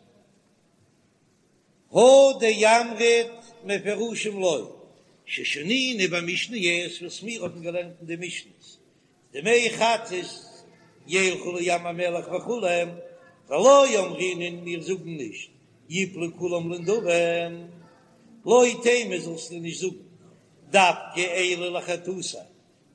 הא דאמרת מפורשים לא, ששנינו במשניות וואס מיר האבן געלערנט אין די משניות, דמי חטאת ילכו לים המלח וכו', ולא אמרינן מיר זאגן נישט יפלו כולם לנדבה, לא תימא זאלסטו נישט זאגן דווקא אלו לחטאתי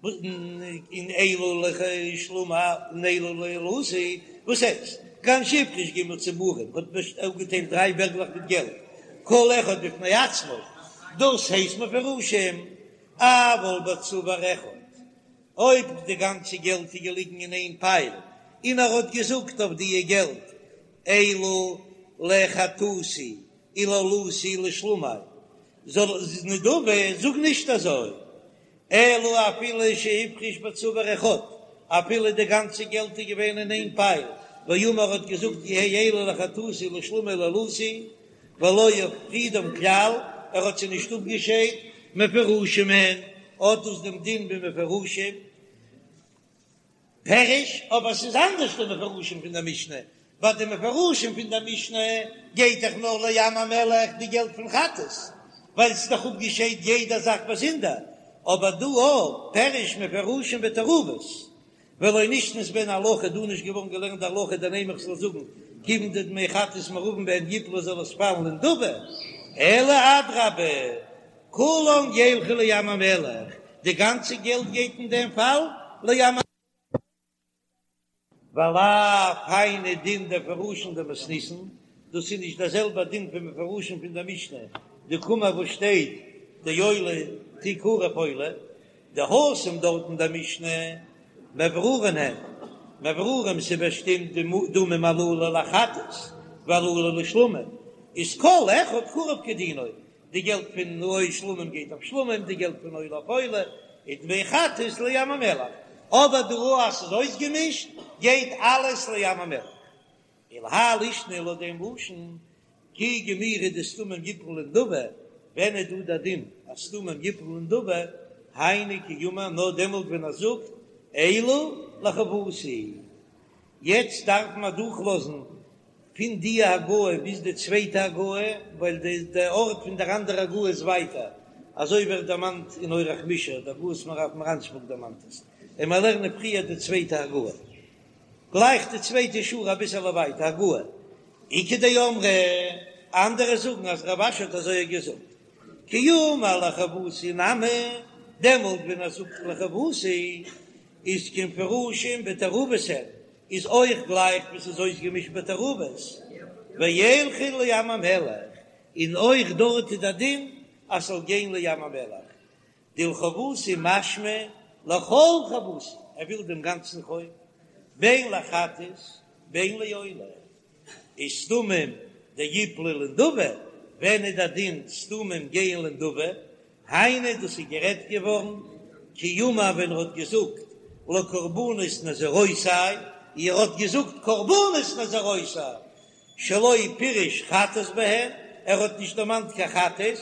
און אלו לשלמי און אלו לעולתי, וואס הייסט? כגון שהפריש ג' צבורים האט אפגעטיילט דריי בערגלעך מיט געלט כל אחד בפני עצמו, דאס הייסט מפורשים, אבל בצבור אחד אויב די גאנצע געלט איז געליגן אין איין פייל און ער האט געזאגט אויף דיע געלט אלו לחטאתי ולעולתי ולשלמי זאל נדבה זאג נישט אזוי אלא אפילו שהפריש בצבור אחד אפילו די גאנצע געלט איז געווען אין איין פייל ואמר האט געזאגט יהא אלו לחטאתי ולשלמי ולעולתי ולא הפרידם כלל, ער האט זיי נישט אפגעשיידט, מפורשים הן, האט דאס דעם דין ווי מפורשים, פירוש, אבער ס'איז אנדערש די מפורשים פון דער משנה, ביי די מפורשים פון דער משנה גייט דאך נאר לים המלח די געלט פון חטאת, ווייל ס'איז דאך אפגעשיידט יעדע זאך באזונדער, אבער דא אויך פירוש מפורשים בתערובות, ולא נשנית בהן הלכה, דא נישט געווארן געלערנט די הלכה דנימא איך זאל זאגן כיוון דדמי חטאת מעורבין בהן יפלו זאל עס פאלן לנדבה, אלא אדרבה כולם ילכו לים המלח, די גאנצע געלט גייט אין דעם פאל לים המלח. ולאו היינו דין דמפורשין דמתניתין, דאס איז נישט דער זעלבער דין פון מפורשים פון דער משנה, דקאמר וואס שטייט דעולה תקרב עולה, דהתם דארט אין דער משנה מברורין הן, מברורין ס'באשטימט די דמים הללו לחטאת והללו לשלמים, איז כל אחד קרב כדינו. די געלט פון נוי שלמים גייט אויף שלמים, די געלט פון עולה אויף עולה, און דמי חטאת לים המלח, אבער דא אז ס'איז אויסגעמישט גייט אלעס לים המלח. ולהאי לישנא לויט דעם לשון כי גמירי דסתומים יפלו לנדבה, ווען איז דא דער דין אז סתומים יפלו לנדבה, היינו כי אמר נאר דעמאלט ווען ער זאגט אלו לחובתי. יעצט דארף מען אדורכלאזן פון די הגהה ביז די צווייטע הגהה, ווייל די די ארט פון דער אנדערע הגהה איז ווייטער, אזוי ווערט דערמאנט אין אורח מישר, די הגהות מהר"ב מרנשבורג דערמאנט עס, און מיר לערנען פריער די צווייטע הגהה. גלייך די צווייטע שורה אביסעלע ווייטער, הגהה, איכא דאמרי, אנדערע זאגן אז רב אשי האט אזוי געזאגט, כי אמר לחובתי נמי, דעמאלט ווען ער זאגט לחובתי איז כמפורשין בתערובות הן, איז אויך גלייך ווי ס'איז אויסגעמישט בתערובות, וילכו לים המלח, און אויך דארט איז דער דין אז ס'זאל גיין לים המלח, דלחובתי משמע לכל חובתי, ער וויל דעם גאנצן חוב, בין לחטאת בין לעולה, איז סתומים דיפלו לנדבה, ווען איז דער דין סתומים גייען לנדבה, היינו דאס איז גערעדט געווארן כי אמר ווען ער האט געזאגט לקרבנות נזירותי, ער האט געזאגט קרבנות נזירותי, שלא פירש חטאת בהן, ער האט נישט דערמאנט קיין חטאת,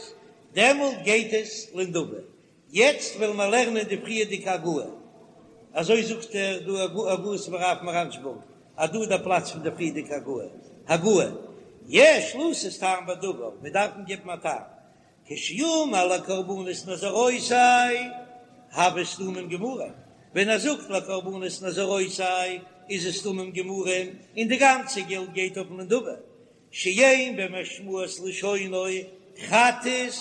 דעמאלט גייט עס לנדבה. יעצט וועלן מיר לערנען די פריערדיגע הגהה, אזוי זאגט ער דא הגהות מהר"ב מרנשבורג, אז דא איז דער פלאץ פון די פריערדיגע הגהה, הגהה, יש לתת טעם בדבר, מיר דארפן געבן א טעם, כשאמר לקרבנות נזירותי, הוו סתומים גמורים, ווען ער זאגט לקרבנות נזירותי איז עס סתומים גמורים און די גאנצע געלט גייט אויף נדבה, שאין במשמעות לשונו חטאת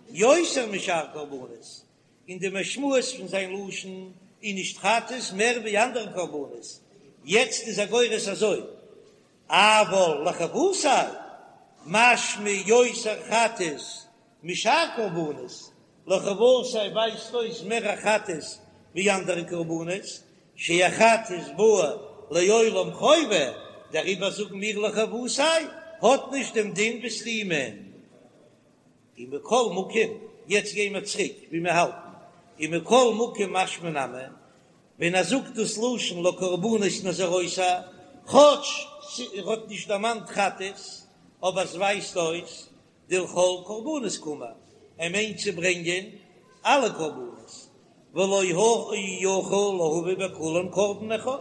יותר משאר קרבנות, אין די משמעות פון זיין לשון איז נישט חטאת מער ווי אנדערע קרבנות, יעצט איז ער גורס אזוי, אבל לחובתי משמע יותר חטאת משאר קרבנות, לחובתי ווייזט אויס מער א חטאת ווי אנדערע קרבנות, שהחטאת באה לעולם חובה, דעריבער זאגן מיר לחובתי האט נישט דעם דין ווי סתומים. ומכל מקום, יעצט גייען מיר צוריק ווי מיר האלטן, ומכל מקום משמע נמי, ווען ער זאגט דאס לשון לקרבנות נזירותי, כאטש ער האט נישט דערמאנט חטאת, אבער עס ווייזט אויס דלכל קרבנות קאמר, ער מיינט צו ברענגען אלע קרבנות, ולא יכול להביא בכולן קרבן אחד,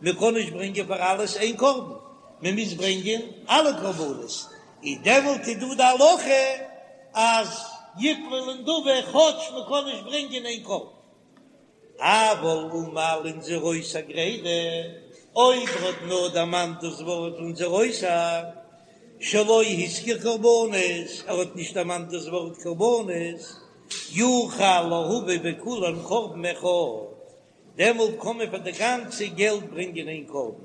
מען קען נישט ברענגען פאר אלעס איין קרבן, מען מוז ברענגען אלע קרבנות, און דעמאלט איז דא די הלכה אז יפלו לנדבה כאטש מען קען נישט ברענגען איין קרבן. אבל אמר לנזירותי גרידא, אויב ער האט נאר דערמאנט דאס ווארט לנזירותי, שלא הזכיר קרבנות, ער האט נישט דערמאנט דאס ווארט קרבנות, יוכל להביא בכולן קרבן אחד, דעמאלט קען מען פאר די גאנצע געלט ברענגען איין קרבן,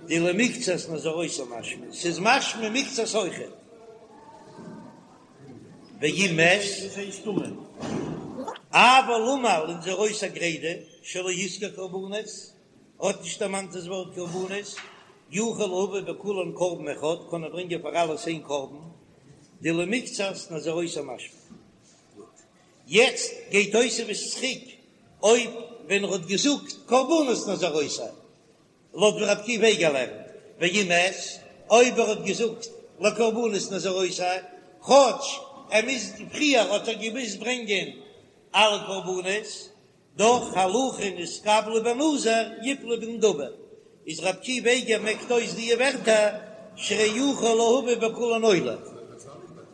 דלמקצת נזירותי משמע, ס'איז משמע מקצת אויכעט. ואם מת, אבל אמר לנזירותי גרידא, שלא הזכיר קרבנות, האט נישט דערמאנט דאס ווארט קרבנות, יוכל להביא בכולן קרבן אחד, קען ער ברענגען פאר אלעס איין קרבן, דלמקצת נזירותי משמע. גוט. יעצט גייט תוספות צוריק אויב ווען ער האט געזאגט קרבנות נזירותי, לויט ווי רבי עקיבא איגר לערנט, ואם מת, אויב ער האט געזאגט לקרבנות נזירותי, כאטש ער מוז פריער האט ער געמוזט ברענגען אלע קרבנות, דאך הלכה נתקבלה בנזיר יפלו בנדבה, איז רבי עקיבא איגר מעקט אויס די ווערטער שהרי יכול להביא בכולן עולה.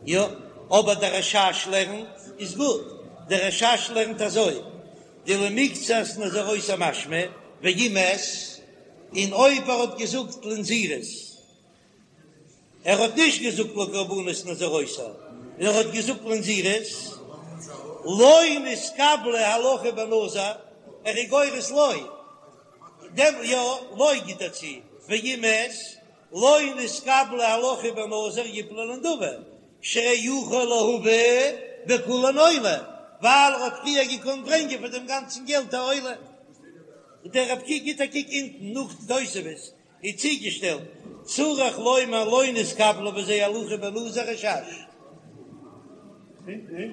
יא, אבער דער רש"ש לערנט איז גוט, דער רש"ש לערנט אזוי, דלמקצת נזירותי משמע, ואם מת, און אויב ער האט געזאגט לנזירות, ער האט נישט געזאגט לקרבנות נזירותי, און ער האט געזאגט לנזירות, לא נתקבלה הלכה בנזיר, ער איז גורס לא, דעם יא, לא גיט ער צו, ואם מת, לא נתקבלה הלכה בנזיר יפלו לנדבה, שהרי יכול להביא בכולן עולה, ווייל ער האט פריער געקאנט ברענגען פאר דעם גאנצן געלט א עולה. דער רב ק גיט א קוק אונטן נאך די תוספות איז צוגעשטעלט, צריך לומר לא נתקבלה בזה הלכה בנזיר רש"ש. רבי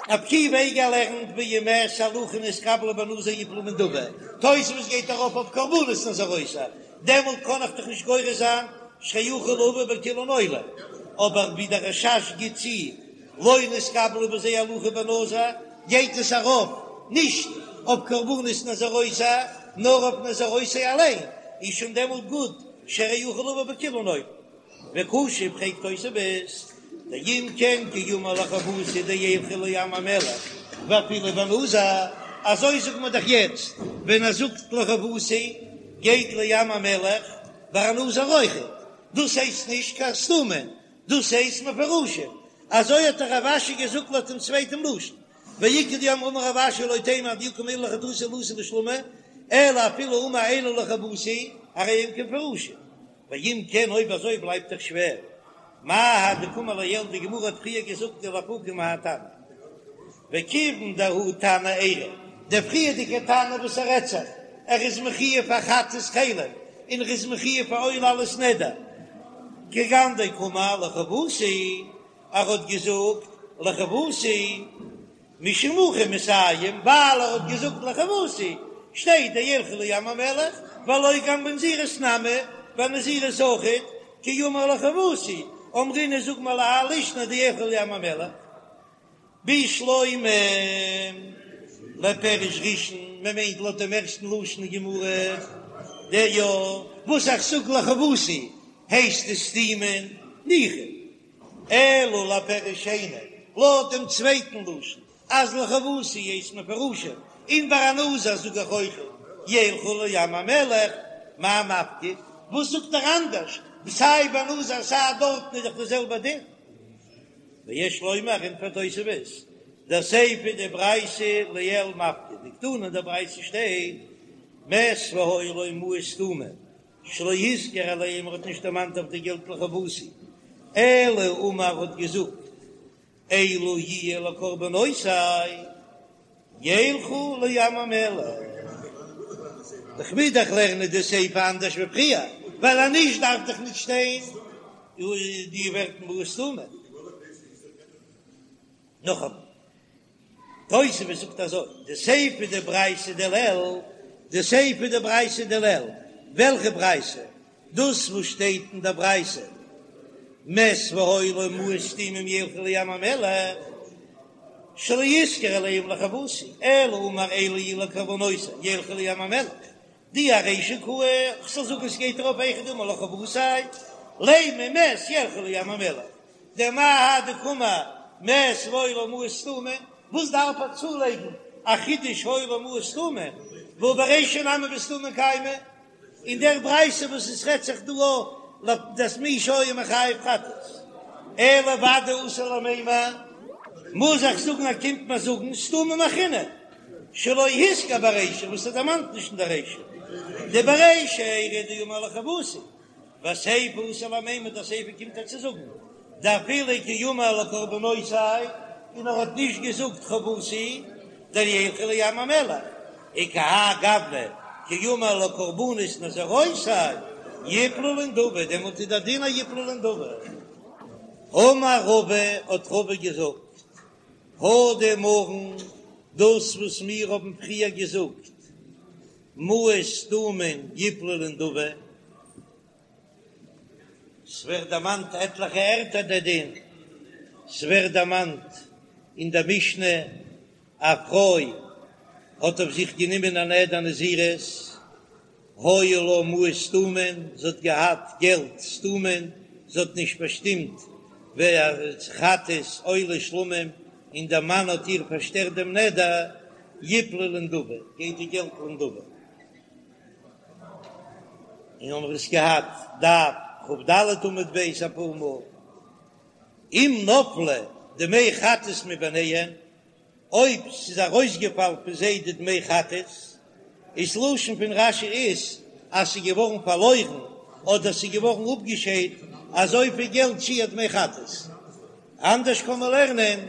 עקיבא איגר לערנט ואם מת הלכה נתקבלה בנזיר יפלו בנדבה, תוספות גייט ארויף אויף קרבנות נזירותו, דעמאלט קען איך דאך נישט גורס זיין שהרי יכול לבא בכולן עולה, אבער ווי דער רש"ש גיט צו לא נתקבלה בזה הלכה בנזיר, גייט עס ארויף נישט אויף קרבנות נזירותו נאר אויף נזירותו אליין, איז שוין דעמאלט גוט שהרי יכול לבא בכולן עולה. וקשה פרעגט תוספות, דאם כן כי אמר לחובתי דילכו לים המלח ואפילו בנזיר, אזוי זאגט מען דאך יעצט ווען ער זאגט לחובתי גייט לים המלח ביי א נזיר אויכעט, דאס הייסט נישט קיין סתומים, דאס הייסט מפורשים, אזוי האט דאך רב אשי געזאגט לויט דעם צווייטן לשון, ואיכא דאמרי אמר רב אשי לא תימא עד דאי קאמר אלו לחטאתי לאתי לשלומי, אלא אפילו אמר אלו לחובתי הרי הם כמפורשים. ואם כן אויב אזוי בלייבט דאך שווער, מאי האי דקאמר לעיל די גמרא האט פריער געזאגט דלאפוקי מהאי תנא, וכיוון דההוא תנא איירי, דער פריערדיגער תנא וואס ער רעדט זיך, ער איז מחויב פאר חטאת חלב און ער איז מחויב פאר עולה עלות נדר, כגון דקאמר לחובתי, ער האט געזאגט לחובתי. משום הכי מסיים, ווייל ער האט געזאגט לחובתי, שטייט דילכו לים המלח, והלא גם בנזירות נמי, ביי נזירות אויכעט, כי אמר לחובתי, אמרינן זאג מיר להאי לישנא דילכו לים המלח. בשלמא לפירוש ראשון, מען מיינט לויט דעם ערשטן לשון אין גמרא, דיא וואס איך זאג לחובתי הייסט עס סתומין, ניחא. אלא לפירוש שני, לויט דעם צווייטן לשון, אז לחובתי הייסט מפורשים, און ביי א נזיר זאג איך אויך ילכו לים המלח, מאי מפקיד? וואס זאגט ער אנדערש? סיי ביי נזיר סיי דארטן איז דאך די זעלבע דין. ויש לומר, ענטפערט תוספות, דסיפא דברייתא לעיל מפקיד, דקתני אין דער ברייתא שטייט מת והיו לו מעות סתומים, שלא הזכיר עליהם ער האט נישט דערמאנט אויף די געלט לחובתי, אלא אמר האט געזאגט אלו יהיו לקרבנותי ילכו לים המלח. איך מוז דאך לערנען די סיפא אנדערש ווי פריער, ווייל אז נישט דארף דאך נישט שטיין די ווערטער מעות סתומים. נאכאמאל, תוספות זאגט אזוי, די סיפא דברייתא דלעיל, די סיפא דברייתא דלעיל, וועלכע ברייתא? דאס וואס שטייט אין דער ברייתא, מת והיו לו מעות סתומים ילכו לים המלח, שלא הזכיר עליהם לחובתי, אלא אמר אלו יהיו לקרבנותי ילכו לים המלח, דאי ארישא קאי, כ'זאל זאגן עס גייט ארויף היכא דאמר לחובתי, לימא מת ילכו לים המלח, דמאי האי דקאמר מת והיו לו מעות סתומים, וואס דארף ער צולייגן א חידוש היו לו מעות סתומים, והא ברישא נמי בסתומים קיימא, אין דער ברייתא וואס עס רעדט זיך דא אויף דאס מי שהיה מחויב חטאת, אלא ודאי אתי למימר, מוז איך זאגן אז קומט מיר זאגן סתומים אחרינא, שלא הזכיר ברישא וואס ער דערמאנט נישט אין דער רישא, דברישא איירי דאמר לחובתי, וסיפא אתי למימר די סיפא קומט ער צו זאגן דאפילו כי אמר לקרבנותי און ער האט נישט געזאגט חובתי דילכו לים המלח וכהאי גוונא כי אמר לקרבנות נזירותי יפלו לנדבה דעמאלט איז דער דין אז יפלו לנדבה. אמר רבא האט רבא געזאגט הא דאמרן דאס וואס מיר האבן פריער געזאגט מעות סתומין יפלו לנדבה, ס'ווערט דערמאנט עטליכע ערטער דער דין, ס'ווערט דערמאנט אין דער משנה, א פרוי האט אויף זיך גענומען א נדר נזירות, היו לה מעות סתומין, זי האט געהאט געלט סתומין, זי האט נישט באשטימט ווער חטאת עולה שלמים, און דער מאן האט איר פארשטערט דעם נדר, יפלו לנדבה, גייט די געלט לנדבה. און האבן מיר עס געהאט דף כ"ד עמוד ב' אפאר מאל, אם נפלו דמי חטאת מביניהם, אויב ס'איז ארויסגעפאלן פון זיי די דמי חטאת, איז לשון פון רש"י איז אז ס'איז געווארן פארלוירן אדער ס'איז געווארן אפגעשיידט אזויפיל געלט שיעור דמי חטאת. אנדערש קען מען לערנען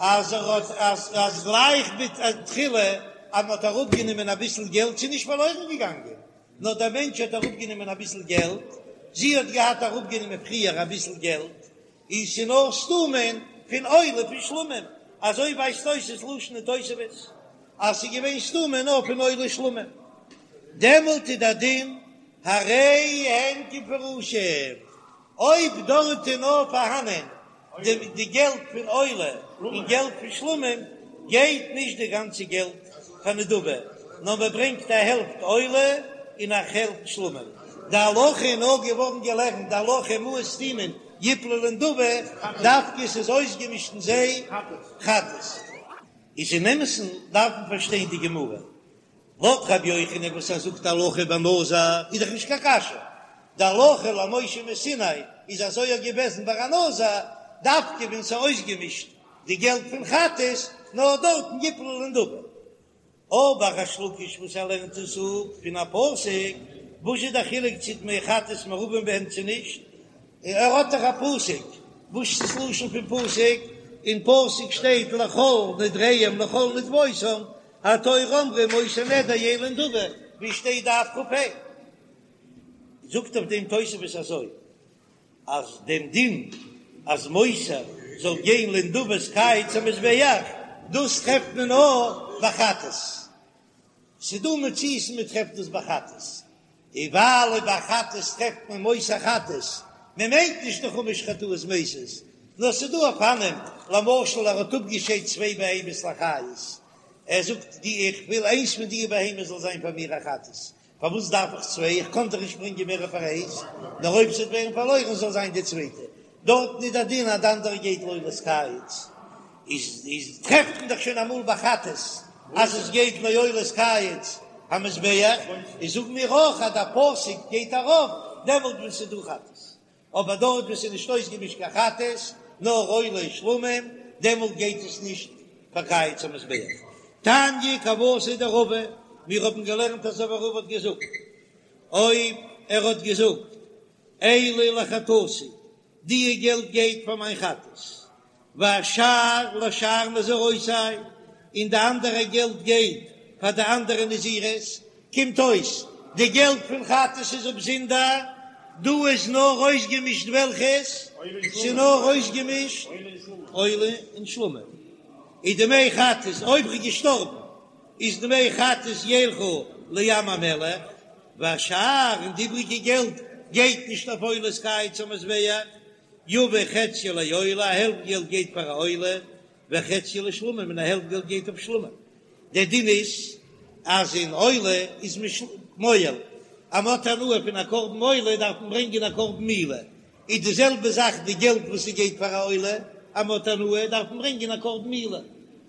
אז ער האט אז אז גלייך בתחילה אז מ'האט אראפגענומען אביסל געלט ס'איז נישט פארלוירן געגאנגען נאר דער מענטש האט אראפגענומען אביסל געלט, זי האט געהאט אראפגענומען פריער אביסל געלט, און ס'איז נאר סתומין פון עולה פון שלמים. אזוי ווייזט אויס דאס לשון אין תוספות אז ס'איז געווען סתומה נאר פון עולה שלמים, דעמאלט איז דער דין הרי הן כמפורשים, אויב דארט איז נאר פארהאנען די געלט פון עולה און געלט פון שלמים, גייט נישט די גאנצע געלט פאר נדבה, נאר מען ברענגט א העלפט עולה און א העלפט שלמים. די הלכה איז נאר געווארן געלערנט די הלכה מעות סתומין יפלו לנדבה, דווקא עס איז אויסגעמישט אין זיי חטאת. איז אין אמת'ן דארף מען פארשטיין די גמרא, לויט רבי יוחנן וואס ער זאגט הלכה בנזיר איז דאך נישט קיין קשיא, די הלכה למשה מסיני איז אזוי אויך געוועזן ביי א נזיר, דווקא ווען ס'איז אויסגעמישט די געלט פון חטאת, נאר דארטן יפלו לנדבה. אבער ריש לקיש וואס ער לערנט עס אפ פון א פסוק, וואס איז די חילוק צו דמי חטאת מעורבין בהן צו נישט? ער האט דאך א פסוק, וואס איז דאס לשון פון פסוק? אין פסוק שטייט לכל נדריהם לכל נדבותם, התורה אמרה מותר נדר יהא לנדבה, ווי שטייט דף כ"ה? זאגט אויף דעם תוספות אזוי, אז דעם דין אז מותר זאל גיין לנדבת קיץ המזבח, דאס טרעפט מען נאר ביי חטאת. ס'דא מציאות מען טרעפט דאס ביי חטאת, און ווייל ביי חטאת טרעפט מען מותר חטאת, מען מיינט נישט די חמש חטאות מתות, נאר ס'דא אופנים, למשל ער האט אפגעשיידט צוויי בהמות לאחריות, ער זאגט די איך וויל איינס פון די בהמות זאל זיין פאר מיר א חטאת, פארוואס דארף איך צוויי, איך קען דאך נישט ברענגען מער פאר איינס, נאר אויב ס'וועט ווערן פארלוירן זאל זיין די צווייטע, דארטן איז דער דין אז די אנדערע גייט לעולת קיץ, איז איז טרעפט מען דאך שוין אמאל ביי חטאת אז עס גייט לעולת קיץ המזבח, איז זאגן מיר אויך אז דער פסוק גייט ארויף דעמאלט ווען ס'איז דא חטאת, אבער דארט וואו ס'איז נישט אויסגעמישט קיין חטאת נאר עולה שלמים, דעמאלט גייט עס נישט פאר קיץ המזבח. תניא כוותיה דרבא, מיר האבן געלערנט אזוי ווי רבא האט געזאגט, אויב ער האט געזאגט אלו לחטאתי, די געלט גייט פאר מיין חטאת, והשאר לשאר נזירותי, און די אנדערע געלט גייט פאר די אנדערע נזירות, קומט אויס די געלט פון חטאת איז באזונדער, דא איז נאר אויסגעמישט וועלכעס? ס'איז נאר אויסגעמישט עולה און שלמים, איז דמי חטאת אויב ר'איז געשטארבן איז דמי חטאת ילכו לים המלח, והשאר און די איבריגע געלט גייט נישט אויף עולת קיץ המזבח, יביא חציו לעולה, א העלפט געלט גייט פאר א עולה, וחציו לשלמים, און א העלפט געלט גייט אויף שלמים. דער דין איז אז אין עולה איז מען מועל, אז מען האט הנאה פון א קרבן עולה דארף מען ברענגען א קרבן מעילה, איז די זעלבע זאך די געלט וואס ס'גייט פאר א עולה, אז מען האט הנאה דארף מען ברענגען א קרבן מעילה,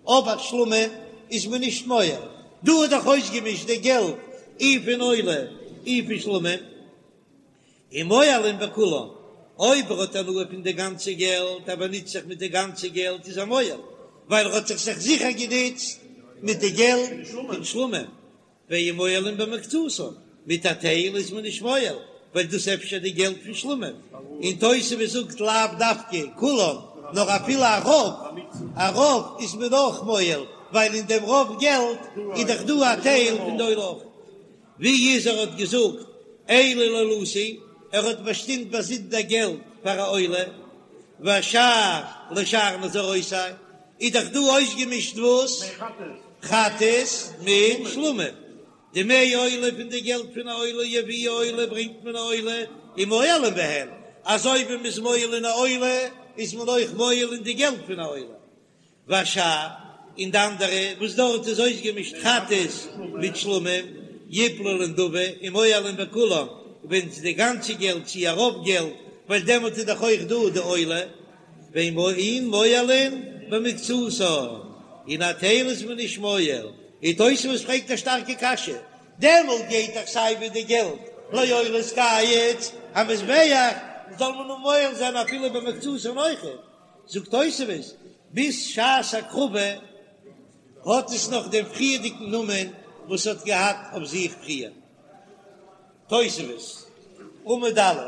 אבער שלמים איז מען נישט מועל, דא איז דאך אויסגעמישט די געלט אי פון עולה אי פון שלמים. און מועלין בכולן, אויב ער האט הנאה פון די גאנצע געלט, ער באנוצט זיך מיט די גאנצע געלט איז ער מועל, ווייל ער האט זיך זיך זיכער גענוצט מיט די געלט פון שלמים, ואין מועלין במקצתן, מיט א טייל איז מען נישט מועל, ווייל דאס אפשר די געלט פון שלמים, און תוספות זאגט לאו דווקא כולן, נאר אפילו א רוב, א רוב איז מען אויך מועל, ווייל אין דעם רוב געלט איז דאך דא א טייל פון די עולה אויך. ווי איז ער האט געזאגט אלו לעולתי, ער האט באשטימט באזונדער געלט פאר א עולה, והשאר לשאר נזירותי, איז דאך דא אויסגעמישט וואס? חטאת מיט שלמים, דמי עולה פון די געלט פון א עולה יביאו עולה ברענגט מען א עולה ומועלין בהן, אזוי ווי מ'איז מועל אין א עולה איז מען אויך מועל אין די געלט פון א עולה. והשאר, און די אנדערע וואס דארט איז אויסגעמישט חטאת מיט שלמים, יפלו לנדבה ומועלין בכולם, ווען ס'איז די גאנצע געלט צי א רוב געלט, ווייל דעמאלט איז דאך אויך דא די עולה, ואין מועלין במקצתן, און א טייל איז מען נישט מועל, און תוספות פרעגט א שטארקע קשיא, דעמאלט גייט דאך סיי ווי די געלט לעולת קיץ המזבח, זאל מען נאר מועל זיין אפילו במקצתן אויכעט. זאגט תוספות, ביז שעת הקרבה האט עס נאך דעם פריערדיגן נאמען וואס האט געהאט אויף זיך פריער. תוספות, עמוד א',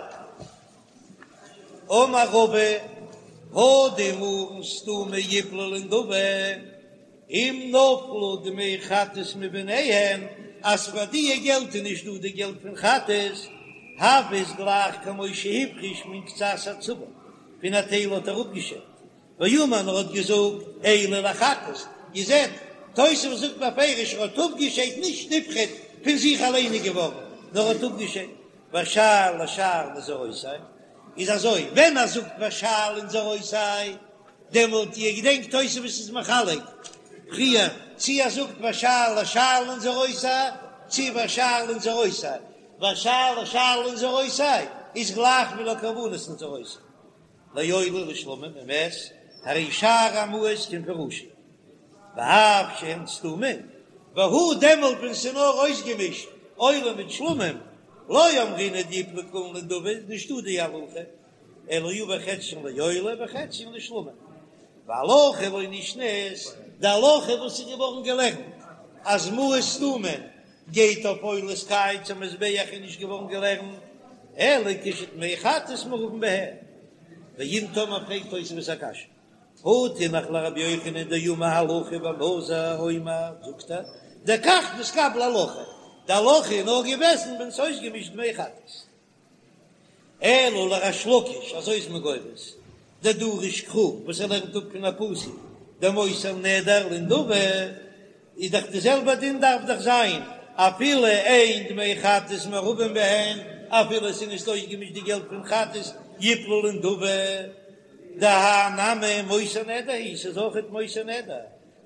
אמר רבא, הא דאמרן סתומה יפלו לנדבה, אם נפלו דמי חטאת מביניהם, אז פאר דיע געלט איז נישט דא די געלט פון חטאת, הוי איז גלייך כמו שהפריש מן קצת הצבור, פון א טייל האט ער אפגעשיידט. ואמר און ער האט געזאגט אלו לחטאת, איר זעט, תוספות זאגט בפירוש ער האט אפגעשיידט נישט נפחת פון זיך אליין איז געווארן, נאר ער האט אפגעשיידט והשאר לשאר נזירותי, איז אזוי ווען ער זאגט והשאר לנזירותי דעמאלט איר געדענקט תוספות איז מחלק פריער צי ער זאגט והשאר לשאר לנזירותי צי והשאר לנזירותי, והשאר לשאר לנזירותי איז גלייך ווי לקרבנות נזירותי. לעולה ולשלמים ומת, הרי שאר המעות כמפורשין, ואף שהן סתומין, והוא דעמאלט ווען ס'איז נאר אויסגעמישט עולה מיט שלמים, לא אמרינן דיפלו כולן לנדבה איז נישטא די הלכה, אלא יביא חציין לעולה וחציין לשלמים, והלכה לא נשנית, די הלכה וואס איז געווארן געלערנט אז מעות סתומין גייט אויף עולת קיץ המזבח איז נישט געווארן געלערנט אלא כשדמי חטאת מעורבין בהן, ואם תאמר פרעגט תוספות א קשיא, הא תינח לרבי יוחנן דאמר הלכה בנזיר אומר זאגט ער דכך נתקבלה הלכה, די הלכה איז נאר געוועזן ווען ס'איז אויסגעמישט דמי חטאת. אלא לריש לקיש, אזוי איז מען גורס, דדריש קרא, וואס ער לערנט אפ פון א פסוק, דמותר נדר לנדבה, איז דאך די זעלבע דין דארף דאך זיין אפילו אין דמי חטאת מעורבים בהן, אפילו עס איז נישט אויסגעמישט די געלט פון חטאת יפלו לנדבה, דהאי נמי מותר נדר הוא, ס'איז אויכעט מותר נדר,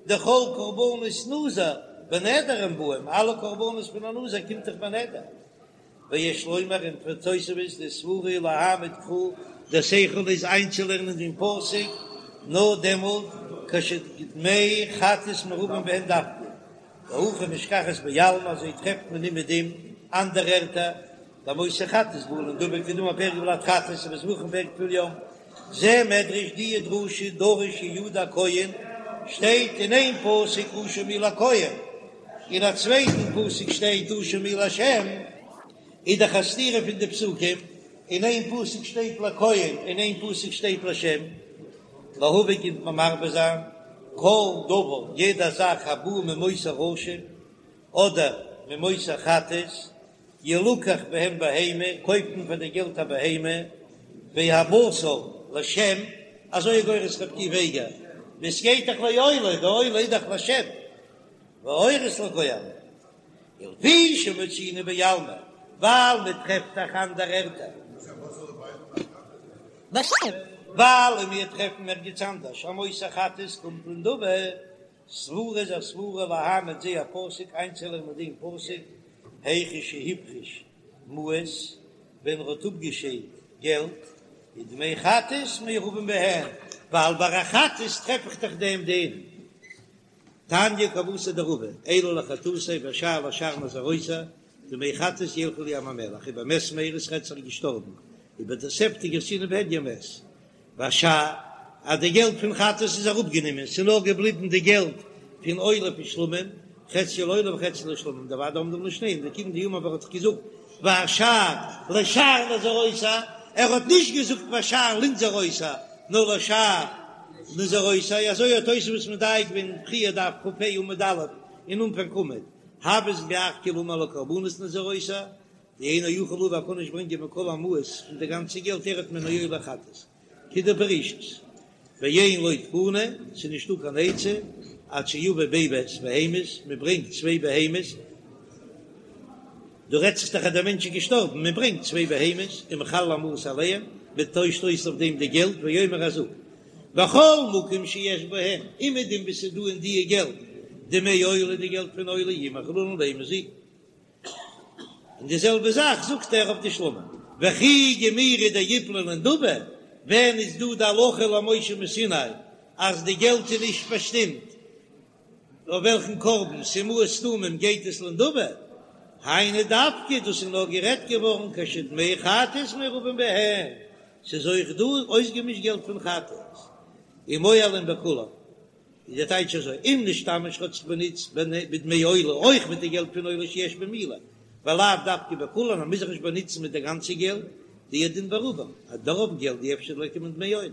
דכל קרבנות נזיר בנדר הן באים, אלע קרבנות פון א נזיר קומט דאך בנדר. ויש לומר ענטפערט תוספות דסברא להעמיד קרא, דער שכל איז איינצולערנען דעם פסוק נאר דעמאלט כשדמי חטאת מעורבים בהן דווקא, והכי משכחת בעלמא אזוי טרעפט מען אומעדום אנדערע ערטער דמותר חטאת בא לנדבה כדאמר פרק ולד חטאת ובזבחים פרק טבול יום, זה מדרש די דרשה דרש יהוידע הכהן שטייט אין איין פסוק אשם הוא לכהן. אין א צווייטן פסוק שטייט אשם הוא להשם, איז דאך א סתירה פון די פסוקים, אין איין פסוק שטייט לכהן אין איין פסוק שטייט לשם, להביא קומט מען מרבה זיין כל דבר יעדע זאך הבא ממותר אשם אדער ממותר חטאת ילקח בהם בהמה קויפט מען פאר די געלט א בהמה והבשר לשם, אזוי איז גורס רבי עקיבא איגר, עס גייט דאך לעולה, די עולה איז דאך לשם. והעורות לכהנים, ולפי שמצינו בעלמא, ווייל מען טרעפט דאך אנדערע ערטער. ווייל מיר טרעפן ערגעץ אנדערש אז מותר חטאת קומט לנדבה, סברא איז א סברא להעמיד זה הפסוק איינצולערנען דעם פסוק היכא שהפריש מעות ווען ער האט אפגעשיידט געלט ודמי חטאת מעורבים בהן, ווייל ביי א חטאת טרעף איך דאך דעם דין. תניא כוותיה דרבא, אלו לחטאתי והשאר לשאר נזירותי, דמי חטאת ילכו לים המלח, ובמת מרע ס'רעדט זיך געשטארבן, ובתוספתא גרסינן בהדיא מת, והשאר אז די געלט פון חטאת איז אראפגענומען, ס'איז נאר געבליבן די געלט פון עולה פון שלמים, חצי לעולה וחצי לשלמים, דודאי עומדים לשניהם, דכיון דאמר ער האט דאך געזאגט והשאר לשאר נזירותי, ער האט נישט געזאגט והשאר לנזירותי, נאר לשאר נזירותי, אזוי האט תוספות מדייק געווען פריער דף כ"ה עמוד א' אין אנפאנג עמוד, הוי עס גלייך כאילו אמר לקרבנות נזירותי, דאינו יכול להביא ער קען נישט ברענגען מכל המעות פון די גאנצע געלט אחד מן העולה וחטאת כדפרישית, ואין לו תקנה, ס'איז נישטא קיין עצה עד שיביא ב' בהמות, מען ברענגט צוויי בהמות, דא רעדט זיך דאך אז דער מענטש איז געשטארבן, מען ברענגט צוויי בהמות ומחלל המעות עליהם, מען טוישט אויס אויף דעם די געלט, ואומר ער זאגט, בכל מקום שיש בהם, אומעדום וואו ס'איז דא אין דיע געלט דמי עולה די געלט פון עולה יהיו מחוללין לבהמה זו. און די זעלבע זאך זאגט ער אויף די שלמים, וכי גמירי דיפלו לנדבה, ווען איז דא די הלכה למשה מסיני אז די געלט איז נישט באשטימט אויף וועלכן קרבן, ס'איז מעות סתומים גייט עס לנדבה, היינו דווקא דאס איז נאר גערעדט געווארן כשדמי חטאת מעורבים בהן, ס'איז אויך דא אויסגעמישט געלט פון חטאת, ומועלין בכולן, איז דער טייטש אזוי, אם נשתמש האט זיך באנוצט בדמי עולה אויך מיט די געלט פון עולה שיש בהן מעילה, ולאו דווקא בכולן, מען מוז זיך נישט באנוצן מיט די גאנצע געלט, דהוא הדין ברובם, אז די רוב געלט דאי אפשר ליכא מדמי עולה,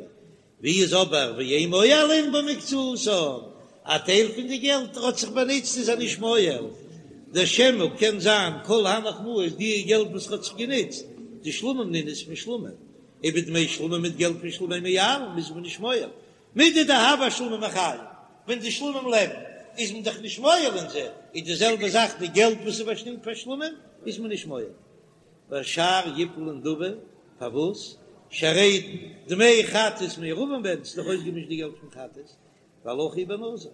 ווי איז אבער ואין מועלין במקצתן, א טייל פון די געלט ער האט זיך באנוצט איז ער נישט מועל, דשמא קען זיין כל הנך מעות די געלט וואס ער האט זיך גענוצט, דשלמים נינהו איז פון שלמים, ובדמי שלמים מיט געלט פון שלמים אין מועלין איז מען נישט מועל. מידי דהוה אשלמים חיים, ווען די שלמים לעבן איז מען דאך נישט מועל אין זיי, איז די זעלבע זאך די געלט וואס איז באשטימט פאר שלמים איז מען נישט מועל. והשאר יפלו לנדבה, פארוואס? שהרי דמי חטאת מעורבין בהן, ס'איז דאך אויסגעמישט די געלט פון חטאת, והלכה היא בנזיר.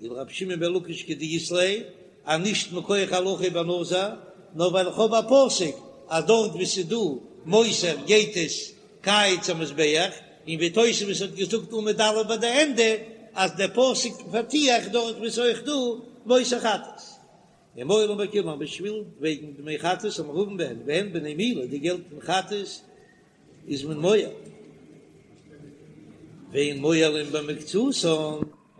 ולרבי שמעון בן לקיש כדאית ליה, אז נישט מכח הלכה בנזיר, נאר ווייל איך האב א פסוק אז דארט וואו ס'איז דא מותר גייט עס קיץ המזבח, און ווי תוספות האט געזאגט עמוד א' ביי די ענדע אז דער פסוק פארט דארט וואו ס'איז אויך דא מותר חטאת. ומועלין בכולן בשביל וועגן דמי חטאת המעורבין בהן והן בני מילה די געלט פון חטאת איז מען מועל ואין מועלין במקצתן.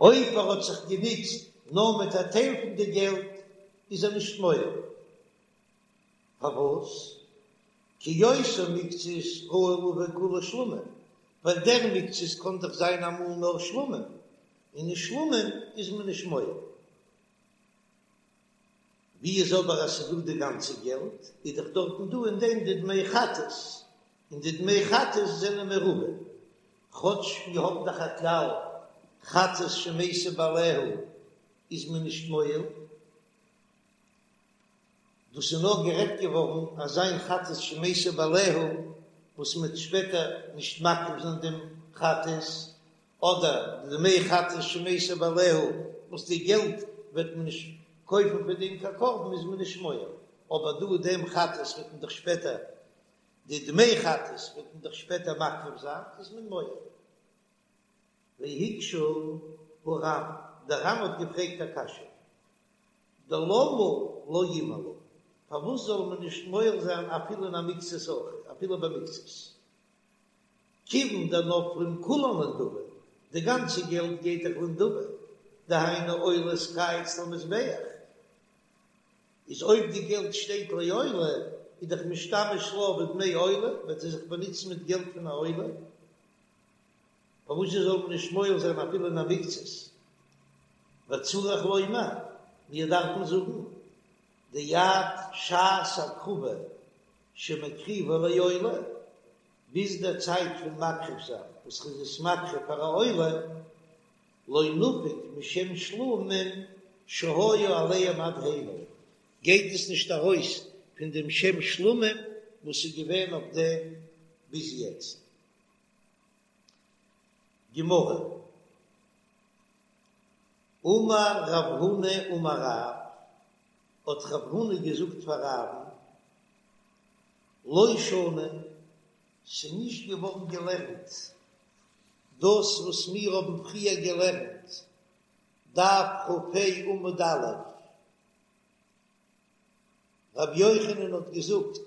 אויב ער האט זיך גענוצט נאר מיט א טייל פון די געלט איז ער נישט מועל. פארוואס? כי אותה מקצת ראוי לבא כולה שלמים, ווייל דער מקצת קען דאך זיין אמאל נאר שלמים, און אין שלמים איז מען נישט מועל. ווי איז אבער אז ס'איז דא די גאנצע געלט, איז דאך דארטן דא אין דעם די דמי חטאת, און די דמי חטאת זענען מעורבים, כאטש מיר האבן דאך א כלל חטאת שמתו בעליה איז מען נישט מועל, דאס איז נאר גערעדט געווארן אזא חטאת שמתו בעליה וואס מ'וועט שפעטער נישט מקריב זיין דעם חטאת, אדער די דמי חטאת שמתו בעליה וואס די געלט וועט מען נישט קויפן פון דעם קיין קרבן איז מען נישט מועל, אבער דא דעם חטאת וועט מען דאך שפעטער די דמי חטאת וועט מען דאך שפעטער מקריב זיין איז מען מועל. והקשה הר"ן, דער ר"ן האט געפרעגט א קשיא, דלמה לא ימעלו, פארוואס זאל מען נישט מועל זיין אפילו אין א מקצת אויך, אפילו במקצת? כיוון דנפלין כולן לנדבה, די גאנצע געלט גייט דאך לנדבה, דהיינו עולת קיץ למזבח, איז אויב די געלט שטייט לעולה, איז דאך משתמש לה בדמי עולה, וועט ער זיך באנוצן מיט געלט פון א עולה, פארוואס זאל מען נישט מועל זיין אפילו אין א מקצת? וצריך לומר, מיר דארפן זאגן, דעד שעת הקרבה שמקריבה לעולה, ביז דער צייט פון מקריב זיין וואס ער איז עס מקריב פאר א עולה, לא נפיק משם שלמים שהיה עליהם עד הנה, גייט עס נישט ארויס פון דעם שם שלמים וואס איז געווען אויף דעם ביז יעצט. גמרא, אמר רב הונא אמר רב, האט רב הונא געזאגט פאר רב'ן, לא שנו, ס'איז נישט געווארן געלערנט דאס וואס מיר האבן פריער געלערנט, דף כ"ה עמוד א', רבי יוחנן האט געזאגט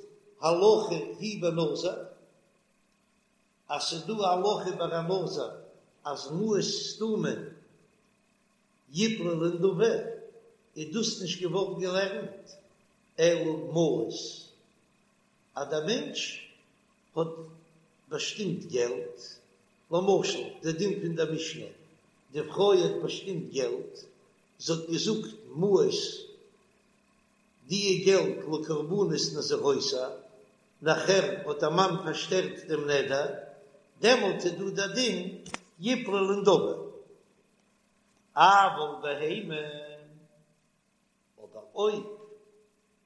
הלכה היא בנזיר, אז ס'איז דא א הלכה ביי א נזיר אז מעות סתומים יפלו לנדבה, איז דאס נישט געווארן געלערנט אלא מעות, אז דער מענטש האט באשטימט געלט, למשל די דין פון דער משנה, די פרוי האט באשטימט געלט, זי האט געזאגט מעות, די געלט לקרבנות נזירותי, נאכער האט דער מאן פארשטערט דעם נדר, דעמאלט איז דא דער דין יפלו לנדבה. אבל בהמה, אבער אויב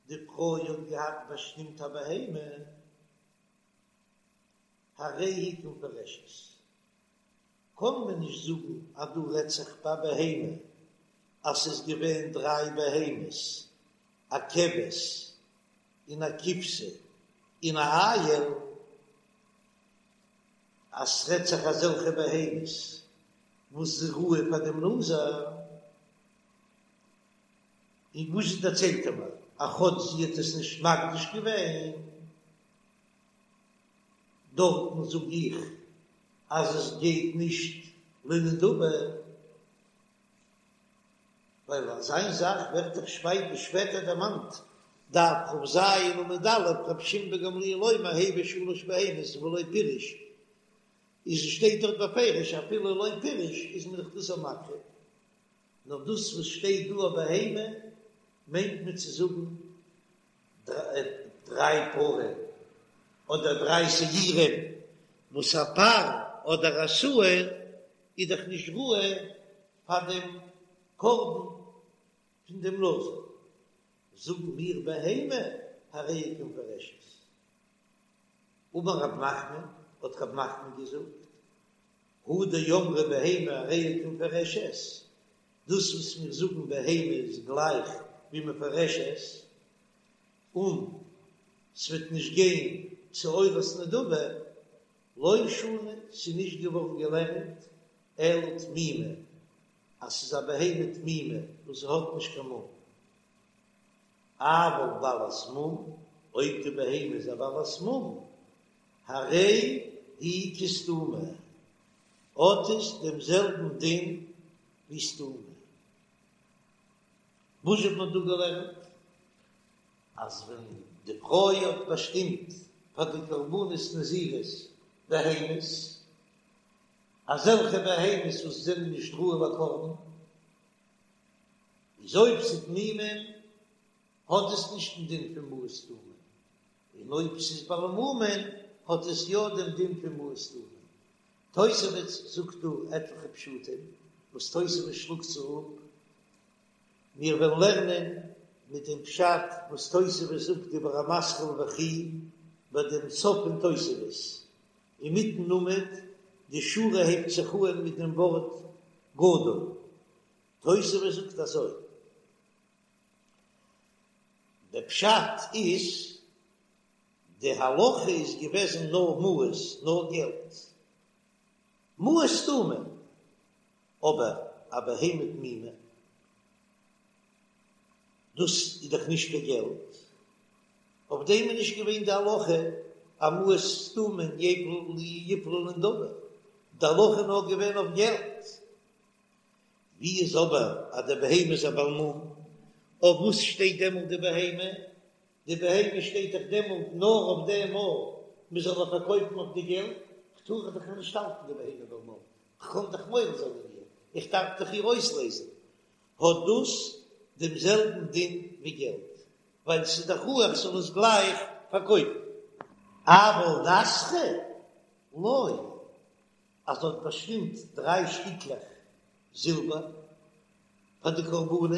די פרוי האט געהאט באשטימט א בהמה, הרי היא כמפורשת, קען מען נישט זאגן אז דא רעדט זיך ביי בהמה אז ס'איז געווען דריי בהמות, א כבש און א כבשה און א איל, אז ס'רעדט זיך אזעלכע בהמות וואס איז ראוי פאר דעם נזיר, און וואס דערציילט ער מיר אז כאטש זי האט עס נישט מקדיש געווען, דארטן זאג איך אז עס גייט נישט לנדבה, ווייל אזא זאך ווערט דאך שפעטער דערמאנט, דף כ"ז עמוד א', רבי שמעון בן גמליאל אומר הביא שלש בהמות ולא פירש, איז שטייט דארט בפירוש אפילו לא פירש איז מען דאך דאס מקריב, נאר דאס וואס שטייט דא א בהמה מיינט מען צו זאגן דריי פרים אדער דריי שעירים, וואס א פר אדער א שעיר. איז דאך נישט ראוי פאר דעם קרבן פון דעם נזיר, זאגן מיר בהמה הרי היא כמפורשת. אמר רב נחמן, האט רב נחמן געזאגט, הא דאמרי בהמה הרי היא כמפורשת, דאס וואס מיר זאגן בהמה איז גלייך ווי מפורשת, און ס'וועט נישט גיין צו עולת נדבה, לא שנו, ס'איז נישט געווארן געלערנט אלא תמימה, אז ס'איז א בהמה תמימה וואס האט נישט קיין מום. אבל בעלת מום, אויב די בהמה איז א בעלת מום, הרי היא כסתומה, האט עס דעם זעלבן דין ווי סתומה. וואס האט מען דא געלערנט? אז ווען די פרוי האט באשטימט פאר די קרבנות נזירות בהמות, אזעלכע בהמות וואס זענען נישט ראוי לקרבן, איז אויב ס'איז תמימים האט עס נישט דעם דין פון מעות סתומים, און אויב ס'איז בעלי מומין האט עס יא דעם דין פון מעות סתומים. תוספות זאגט דא עטליכע פשטים וואס תוספות שלאגט זיך אפ, מיר וועלן לערנען מיט דעם פשט וואס תוספות זאגט דיבור המתחיל וכי ביי דעם סוף פון תוספות אינמיטן עמוד, די שורה הייבט זיך אהן מיט דעם ווארט גדול, תוספות זאגט אזוי, דער פשט איז, די הלכה איז געוועזן נאר מעות, נאר געלט, מעות סתומים, אבער א בהמה תמימה, דאס איז דאך נישט קיין געלט, אויף דעם איז נישט געווען די הלכה אז מעות סתומים יפלו לנדבה, די הלכה איז נאר געווען אויף געלט. ווי איז אבער אז די בהמה איז א בעל מום, אויף וואס שטייט דעמאלט די בהמה? די בהמה שטייט דאך דעמאלט נאר אויף דעם אויב מען זאל איר פארקויפן אויף די געלט, כ'טאר דאך נישט האלטן די בהמה בעל מום, כ'קען דאך מועל זיין אין איר, איך דארף דאך איר אויסלעזן, האט דאס דעם זעלבן דין ווי געלט, ווייל ס'איז דאך ראוי איך זאל עס גלייך פארקויפן. אבל נסכא לא, אז זי האט באשטימט דריי שטיקלעך זילבער פאר די קרבנות,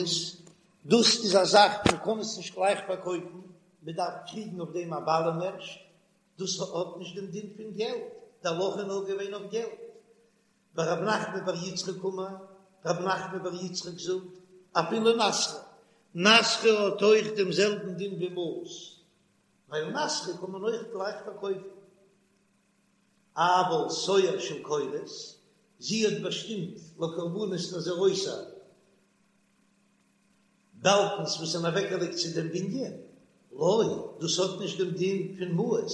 דאס איז א זאך מען קען עס נישט גלייך פארקויפן, מען דארף קריגן אויף דעם א בעלים ערשט, דאס האט נישט דעם דין פון געלט, די הלכה איז נאר געווען אויף געלט. ורב נחמן בר יצחק אמר, רב נחמן בר יצחק זאגט, אפילו נסכא, נסכא האט אויך דעם זעלבן דין ווי מעות, ווייל נסכא קען מען אויך גלייך פארקויפן. אבל סואר של קורות, זי האט באשטימט לקרבנות נזירותה באלקנס וואס זענען אוועקגעלייגט צו דעם בנין, לא, דאס האט נישט דעם דין פון מעות,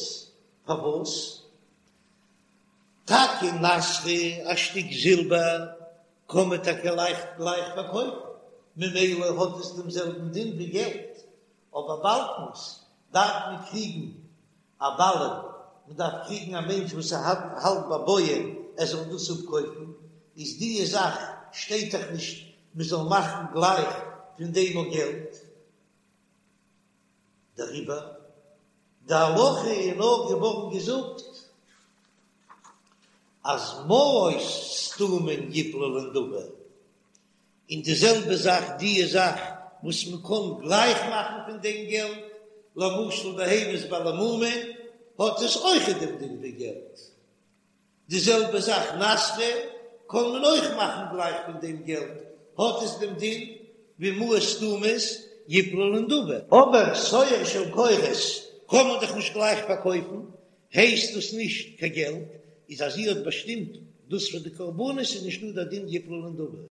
פארוואס? טאקע נסכא, א שטיק זילבער, קען מען טאקע לייכט גלייך פארקויפן, ממילא האט עס דעם זעלבן דין ווי געלט, אבער באלקנס דארף מען קריגן א בעלים, מען דארף קריגן א מענטש וואס ער האלט ביי בויען ער זאל דאס אפקויפן, איז דיע זאך שטייט דאך נישט מען זאל מאכן גלייך פון דעם אויך געלט, דעריבער די הלכה איז נאר געווארן געזאגט אז מעות סתומים יפלו לנדבה, און די זעלבע זאך דיע זאך וואס מען קען גלייך מאכן פון דעם געלט, למשל בהמות בעלי מומין, האט עס אויכעט דעם דין ווי געלט. די זעלבע זאך נסכא קען מען אויך מאכן גלייך פון דעם געלט, האט עס דעם דין ווי מעות סתומות יפלו לנדבה. אבער סואר של קורות קען מען דאך נישט גלייך פארקויפן, הייסט דאס נישט קיין געלט, איז אז זי האט באשטימט דאס פאר די קרבנות איז נישטא דער דין יפלו לנדבה.